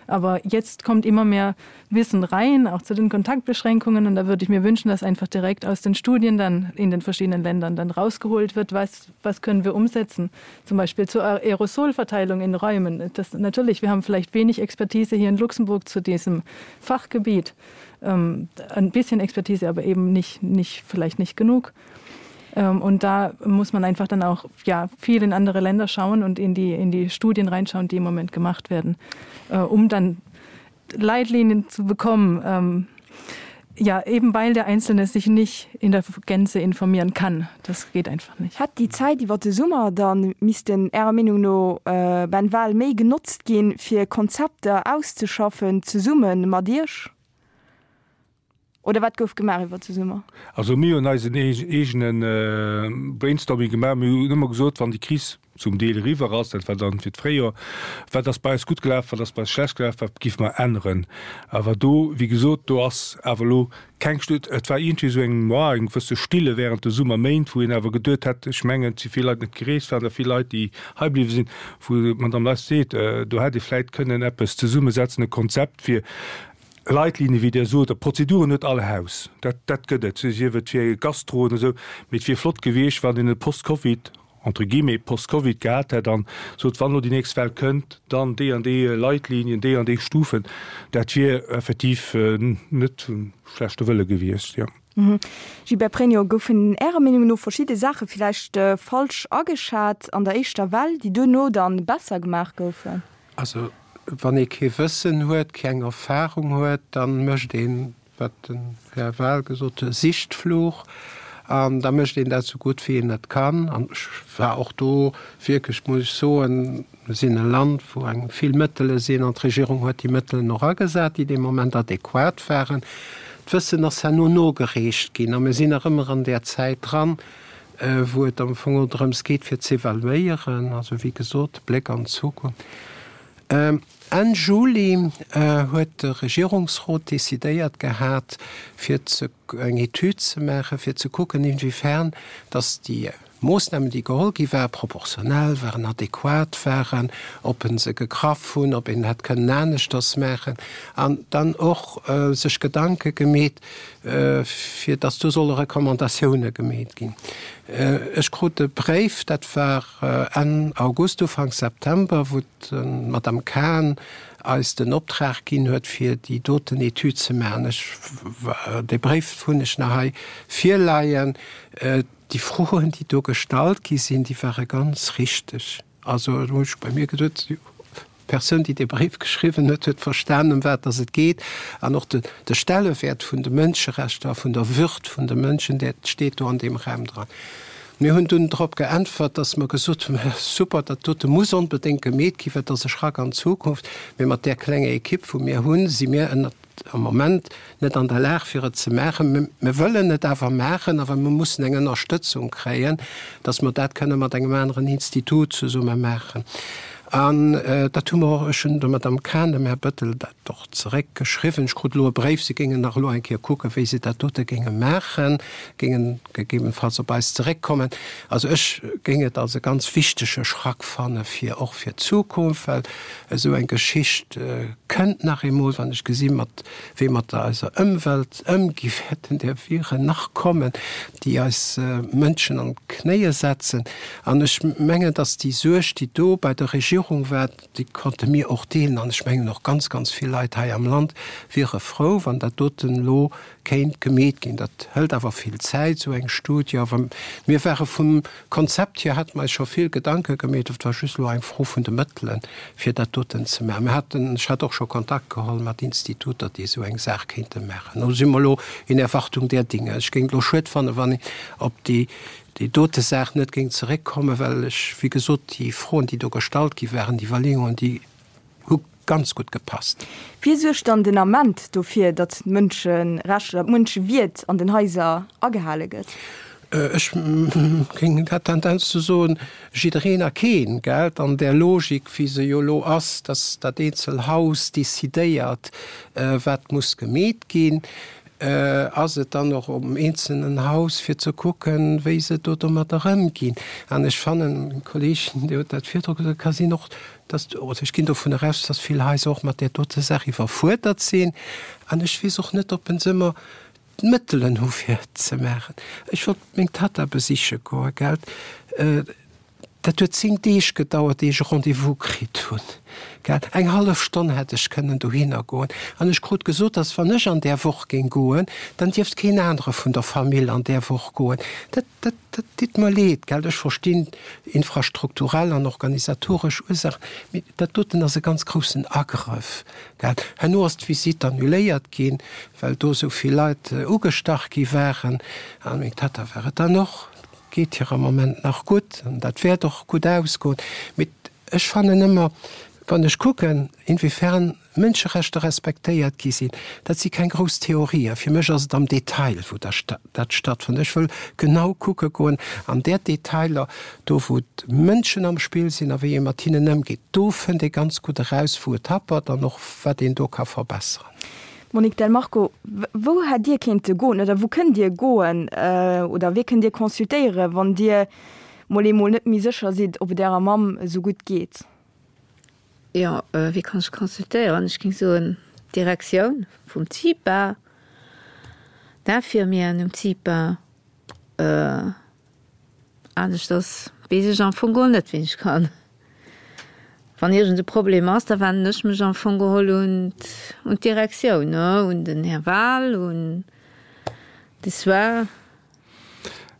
Aber jetzt kommt immer mehr Wissen rein, auch zu den Kontaktbeschränkungen. Und da würde ich mir wünschen, dass einfach direkt aus den Studien dann in den verschiedenen Ländern dann rausgeholt wird, was, was können wir umsetzen. Zum Beispiel zur Aerosolverteilung in Räumen. Das, natürlich, wir haben vielleicht wenig Expertise hier in Luxemburg zu diesem Fachgebiet. Ähm, ein bisschen Expertise, aber eben nicht, nicht, vielleicht nicht genug. Ähm, und da muss man einfach dann auch ja, viel in andere Länder schauen und in die, in die Studien reinschauen, die im Moment gemacht werden, äh, um dann Leitlinien zu bekommen. Ähm, Ja, eben weil der Einzelne sich nicht in der Gänze informieren kann. Das geht einfach nicht. Hätt déi Zäit iwwer de Summer dann missten Ärer Meenung no, Ben Wahl, méi genotzt ginn, fir Konzepter auszeschaffen zesumme mat Iech? Oder wat gouf gemaach iwwer de Summer? Also mir hunn eisen eegene Brainstorming gemaach. Mir hunn ëmmer gesot, wann déi Kris zum Deel eriwwer ass, dat war dann fir d'Fréijoer, wat ass bei eis gutt gelaf, wat ass bei eis schlecht gelaf, wat géife mer änneren. Awer do, wéi gesot, do ass awer elo keng Stu-, et war iergendwéi esou eng, ja, eng gewësse Stille während de Summerméint, wou een awer geduet hätt, ech mengen, et si vill Leit net gereest, waren der vill Leit, déi hei bliwwe sinn, wou d'Madame Less seet, do hätt ee vläicht kënnen eppes zesummesetzen, e Konzept fir Leitlinien, wéi Der sot, a Prozeduren huet all Haus, dat, dat gëtt et, sief et fir Gastroen esou, mee et wier flott gewiescht, wann een e Post-Covid, entre guillemets, Post-Covid gehat hätt an sot, wann elo déi nächst Well kënnt, dann déi an déi Leitlinien, déi an déi Stufen. Dat wier effektiv net vum schlechte Wëlle gewiescht, jo. Gilbert Pregno, Goufen Ärer Meenung no verschidde Saache villäicht falsch ageschat an der éischter Well, déi duerno dann besser gemaach goufen? Also wann ee kee Wëssen huet, keng Erfahrung huet, da mécht een, wat den Här Wahl gesot huet, e Sichtflug an da mécht een dat esou gutt wéi een et kann. An ech war och do wierklech, muss ech soen, mir sinn e Land wou eng vill Mëttele sinn an d'Regierung huet déi Mëttelen och agesat, déi dee Moment adequat waren. D'Wëssen ass herno nogereecht ginn a mir sinn nach ëmmer an där Zäit dran, wou et am Fong och drëms geet fir z'evaluéieren, also wéi gesot, Bléck an d'Zukunft. Enn Juli huet de Regierungsrot decidéiert gehat, fir ze eng Etüd ze maachen, fir ze kucken, inwiefern datt déi Moossnamen, déi geholl gi waren, proportionell waren, adequat waren, ob e se gegraff hunn, ob een hätt kënnen aneschters maachen, an dann och sech Gedanke gemeet, fir datt do solle Recommandatioune gemeet ginn. Ech krut e Bréif, dat war Enn August, Ufank September, wou d'Madame Cahen eis den Optrag ginn huet, fir déi doten Etüd ze maachen. Ech, dee Bréif hunn ech nach hei virleien. Déi Froen, déi do gestallt gi sinn, déi ware ganz richteg. Also do hunn ech bei mir geduet, d'Persoun, déi dee Bréif geschriwwen huet, huet verstanen, ëm wat dass et geet. An och de Stellewäert vun de Mënscherechter a vun der Würd vun de Mënschen, dat steet do an deem Raum dran. Mir hunn dunn drop geäntwert, dass mer gesot hunn, Super, dat dote muss onbedéngt gemeet ginn, well et ass e Schrack an d'Zukunft. Mee mat där klenger Ekipp, wou mir hunn, si mir ënnert am Moment net an der Lag fir et ze maachen. Mir wëllen et awer maachen, awer mir mussen eng Ënnerstëtzung kréien, datt mer dat kënne mat engem aneren Institut zesumme maachen. An dat hu mer och, ech hunn der Madame Cahen, dem Här Bettel dat och zeréckgeschriwwen. Ech krut elo e Bréif, si géingen nach elo eng Kéier kucken, wéi se dat dote géinge maachen, géingen gegebenfalls op eis zeréckkommen. Also ech géing et als e ganz wichtege Schrack fanne fir och fir d'Zukunft, well Esou eng Geschicht kënnt nach eemol, wann ech gesi mat wéi mat eiser Ëmwelt ëmgi wäerten där Viren nach kommen, déi eis Mënschen an d'Knéie setzen. An ech mengen, datt déi Suerg, déi do bei der Regierung war, déi konnte mir och deelen. An ech mengen och ganz, ganz vill Leit hei am Land wiere frou, wann dat doten elo kéint gemeet ginn. Dat hëlt awer vill Zäit, esou eng Studie. Awer mir ware vum Konzept hier, hate mer eis scho vill Gedanke gemeet. Et war just elo eng Fro vun de Mëttelen, fir dat doten ze maachen. Mir haten, ech hat och scho Kontakt geholl mat Instituter, déi esou eng Saach kéinte maachen. Do si mer elo in Erwartung der Dinge. Ech géing et elo schued fannen, wann een op déi, déi dote Saach net géing zeréckkommen, well ech, wéi gesot, déi Froen, déi do gestallt gi waren, déi Iwwerleeungen, déi hu ganz gutt gepasst. Wie suergt dann den Ament dofir, datt d'Mënscherechter, d'Mënschewierd an den Haiser agehale gëtt? Ech géing dat Tendenz ze soen, jiddereen a keen, gell? An där Logik, wéi se jo elo ass, datt dat eenzel Haus decidéiert, wat muss gemeet ginn, ass et dann och um eenzelnen Haus, fir ze kucken, wéi se do domadder ëmginn. An ech fannen, meng Kolleegin, déi huet dat virdru gesot, et ka sinn och, dass, oder ech ginn dovun eraus, dass vill Haiser och mat där dote Saach iwwerfuerdert sinn. An ech weess och net, ob se ëmmer d'Mëttelen hu fir et ze maachen. Ech wollt meng Tatta besiche goen, gell. Dat huet 10 Deeg gedauert, ier ech e Rendez-vous kritt hunn, gell. Eng hallef Stonn hätt ech kënnen dohinner goen. An ech krut gesot, dass wann ech an där Woch géing goen, dann dierft keen anere vun der Famill an där Woch goen. Dat, dat, dat ditt mer leed, gell. Ech verstinn infrastrukturell an organisatoresch Ursaachen, mee dat doten ass e ganz groussen Agrëff, gell. Herno ass d'Visitt annuléiert ginn, well do esou vill Leit ugestach gi waren. An meng Tatta war et dann och. Geet hir am Moment nach gutt an dat wäert och gutt ausgoen. Mee ech fannen ëmmer, wann ech kucken, inwiefern Mënscherechter respektéiert gi sinn, dat si keng grouss Theorien. Fir mech ass et am Detail, wou dat stattfënnt. Ech wëll genau kucke goen an där Detailer, do wou d'Mënschen am Spill sinn a wéi ee mat hinnen ëmgeet. Do fënnt ee ganz gutt eraus, wou et happert an och wat een do ka verbesseren. Monique Del Marco, Wou hätt Dir kéinte goen oder wou kënnt Dir goen oder wee kënnt Dir consultéieren, wann Dir mol eemol net méi sécher sidd, ob et Ärer Mamm esou gutt geet? Jo, wee kann ech consultéieren? Ech géing soen, d'Direktioun vum CIPA, d'Infirmieren um CIPA. Aneschters weess ech am Fong geholl net, wien ech kann. Wann iergend e Problem ass, da wennen ech mech am Fong geholl un un d'Direktioun, ne, un den Här Wahl, un de Soins.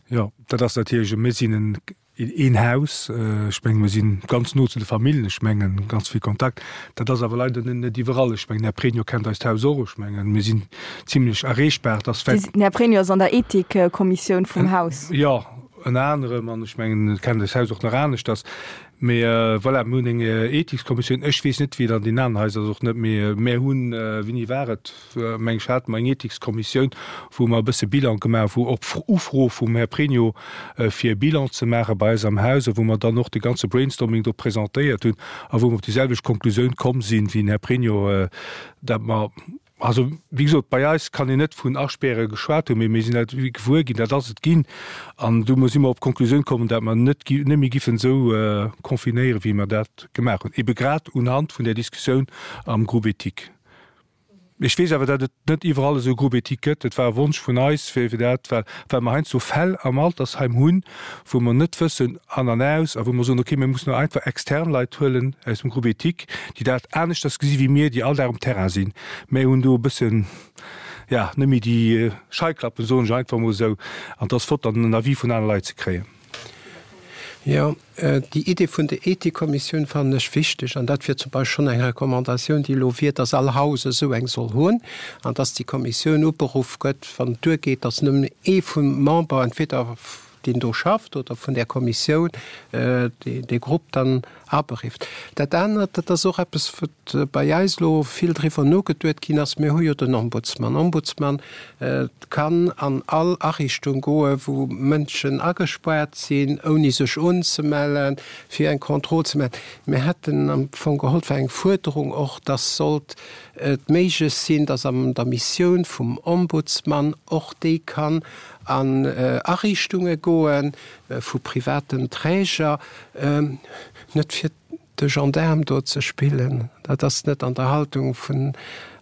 Jo, dat ass natierlech, mir sinn en een Haus, ech mengen, mir si ganz no zu de Familljen, ech mengen, ganz vill Kontakt. Dat ass awer leider net iwwerall. Ech mengen, Här Pregno kennt eist Haus och, ech mengen, mir sinn zimlech erreechbar. Et ass vläicht. Den Här Pregno ass an der Ethikkommissioun vum Haus. Jo, ënner anerem, an ech mengen, e kennt eist Haus och nach aneschters. Mee voilà, mir hunn eng Ethikskommissioun. Ech weess net, wéi et an deenen aneren Haiser ass, och net, mee mär hunn, wéini war et? meng ech, hate mer eng Ethikskommissioun, wou mer e bësse Bilan gemaach hu, op Ufro vum Här Pregno, fir e Bilan ze maache bei eis am Haus a wou mer dann och de ganze Brainstorming do presentéiert hunn a wou mer op déi selwecht Konklusioun komm sinn, wéi den Här Pregno, dat mer, also wéi gesot, bei eis kann een net vun Aspäre geschwat hunn, mee mir sinn dat gewuer ginn, dat ass et ginn an du si mer op d'Konklusioun komm, dat mer net net méi giffen esou confinéieren, wéi mer dat gemaach hunn, ebe grad unhand vun där Diskussioun am Groupe éthique. Ech weess awer, datt et net iwwerall esou e Groupe éthique gëtt. Et war e Wonsch vun eis, fir dat, well well mer heiansdo Fäll am Altersheim hunn, wou mer net wëssen an an aus a wou mer soen, okay, mir mussen elo einfach extern Leit huelen aus dem Groupe éthique, déi dat aneschters gesi wéi mir, déi all Dag um Terrain sinn. Mir hunn do e bëssen, ja, net méi déi Scheiklappen, soen ech einfach emol esou. An et ass flott, dann en Avis vun anere Leit ze kréien. Jo, déi Idee vun der Ethikkommissioun fannen ech wichteg. An dat wier zum Beispill schonn eng Recommandatioun, déi elo wier, dass all Haus esou eng soll hunn an dass déi Kommissioun uberuff gëtt, wann et duergeet, dass nëmmen ee vum Member, entweder deen do schafft oder vun där Kommissioun, dee Grupp dann aberifft. Dat anert, dat ass och eppes, wat bei eis elo vill driwwer nogeduet ginn ass, Mir hu jo den Ombudsman. Ombudsman kann an all Ariichtung goen, wou Mënschen agespaart sinn, ouni sech unzemellen, fir eng Kontroll ze maachen. Mir hätten am Fong geholl, et war eng Fuerderung och, dass sollt et méiglech sinn, dass an der Missioun vum Ombudsman och déi kann an Ariichtunge goen vu privaten Träger, net fir de Gendaarm do ze spillen, dat ass net an der Haltung vun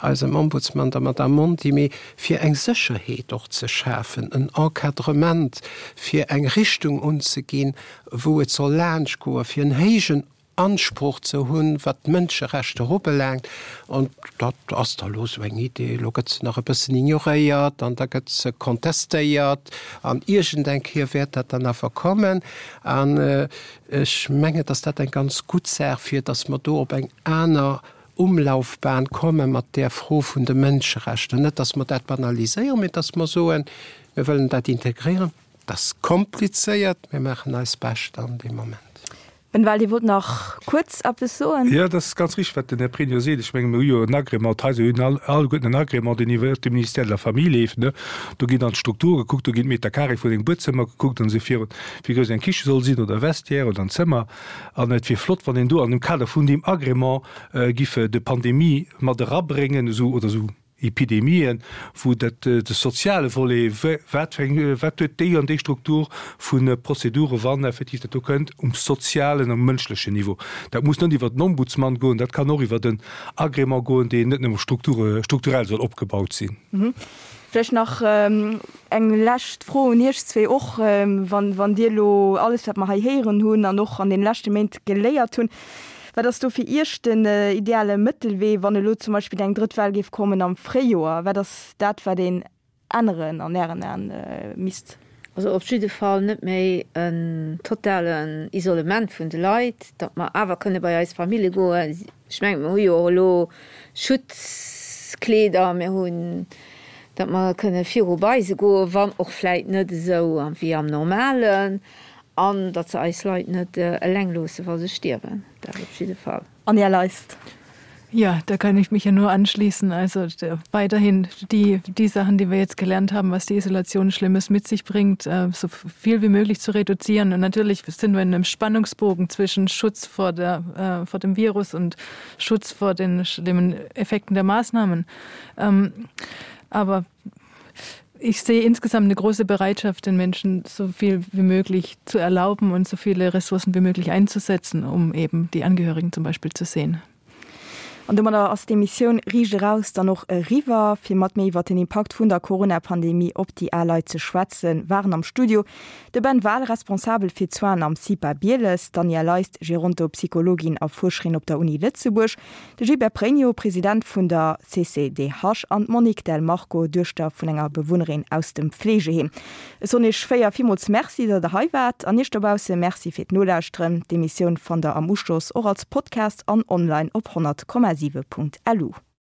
eisem Ombudsman, der Madame Monti, mee fir eng Sécherheet och ze schafen, en Encadrement, fir eng Richtung unzeginn, wou et soll laanschtgoen, fir en héijen Ansproch ze hunn, wat d'Mënscherechter ubelaangt. An dat ass da elo esou eng Idee. Elo gëtt se nach e bëssen ignoréiert an da gëtt se contestéiert an iergendeng Kéier wäert dat dann awer kommen. An ech mengen, dass dat eng ganz gutt Saach wier, dass mer do op eng aner Umlaufbahn komme mat där Fro vun de Mënscherechter. Net, dass mer dat banaliséieren, mee dass mer soen, mir wëllen dat integréieren. Dat ass komplizéiert, mir maachen eist Bescht an deem Moment. Ben Wahl, Dir wollt nach kuerz eppes soen? Jo, dat ass ganz richteg, wat den Här Pregno seet. Ech menge mir hu jo en Agrément, d'Haiser hunn all, alleguerten en Agrément, deen iwwer de Ministère de la Famille leeft, ne. Do ginn dann d'Strukture gekuckt, do ginn d'Meter carré vun engem Buedzëmmer gekuckt an esou virun, wéi grouss eng Kiche soll sinn oder e Vestiaire oder en Zëmmer. An et wier flott, wann een do an dem Kader vun deem Agrément giff de Pandemie mat erabréngen, esou oder esou. Epidemien, wou dat de soziale Volet, wat fir eng, wat huet déi an déi Struktur vu Prozedure wann effektiv dat do kënnt um sozialen, um mënschlechen Niveau. Dat muss net iwwert den Ombudsman goen, dat kann och iwwert en Agrément goen, deen net nëmme strukturell soll opgebaut sinn. Vläicht nach eng lescht Fro un Iech zwee och, wann, wann Dir elo alles, wat mer hei héieren hunn an och an deene leschte Méint geléiert hunn, wat ass do fir Iech den ideale Mëttelwee, wann elo zum Beispill eng drëtt Well géif kommen am Fréijoer? Wat ass dat, wat een änneren an Ären Aen misst? Also op jidde Fall net méi en totalen Isolement vun de Leit, datt mer awer kënne bei eis Famille goen. Ech mengen, mer hu jo och elo Schutzkleeder, mir hunn, datt mer kënne viru bei se goen, wann och vläit net esou wéi am Normalen, an datt se eis Leit net eleng loosse wa se stierwen, dat op jidde Fall. An Här Leist. Ja, da kann ich mich ja nur anschließen. Also weiterhin die, die Sachen, die wir jetzt gelernt haben, was die Isolation Schlimmes mit sich bringt, äh, so viel wie möglich zu reduzieren. Und natürlich sind wir in einem Spannungsbogen zwischen Schutz vor, der, äh, vor dem Virus und Schutz vor den schlimmen Effekten der Maßnahmen. Ähm, aber ich sehe insgesamt eine große Bereitschaft, den Menschen so viel wie möglich zu erlauben und so viele Ressourcen wie möglich einzusetzen, um eben die Angehörigen zum Beispiel zu sehen. An domadder ass d'Emissioun Riicht eraus dann och eriwwer. Fir mat mir iwwer den Impakt vun der Corona-Pandemie op déi al Leit ze schwätzen, waren am Studio de Ben Wahl, Responsabel fir d'Soinen am CIPA Bieles, d'Anja Leist, Gerontopsychologin a Fuerscherin op der Uni Lëtzebuerg, De Gilbert Pregno, President vun der CCDH an d'Monique Del Marco, Duechter vun enger Bewunnerin aus dem Fleegeheem. Ech soen iech 4 villmools Merci, datt der hei waart an iech dobausse Merci fir d'Nolauschteren. D'Emissioun fannt der am Uschloss och als Podcast an online op 100,7.lu.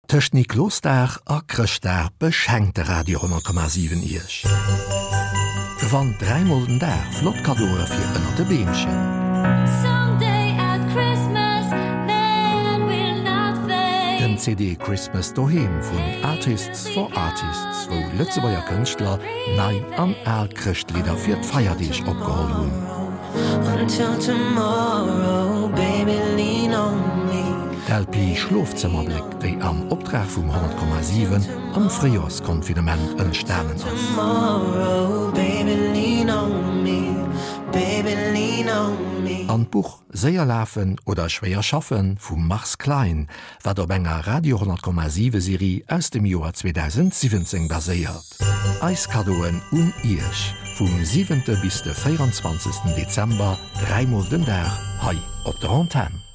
Tëscht Niklosdag a Chrëschtdag beschenkt de Radio 10,7 Iech. Gewannt 3 mol den Dag flott Kaddoe fir ënnert de Beemchen. Den CD Christmas Doheem vun Artists for Artists, wou Lëtzebuerger Kënschtler nei an al Chrëschtlidder fir d'Feierdeeg opgeholl hunn. D'LP Schlofzëmmerbléck, déi am Optrag vum 100,7 am Fréijorsconfinement entstanen ass. An d'Buch Séier lafen oder schwéier schaffen vum Mars Klein, wat op enger Radio 100,7 Serie aus dem Joer 2017 baséiert. Eis Kaddoen un Iech, vum 7 bis de 24 Dezember, dräimol den Dag hei op der Antenn.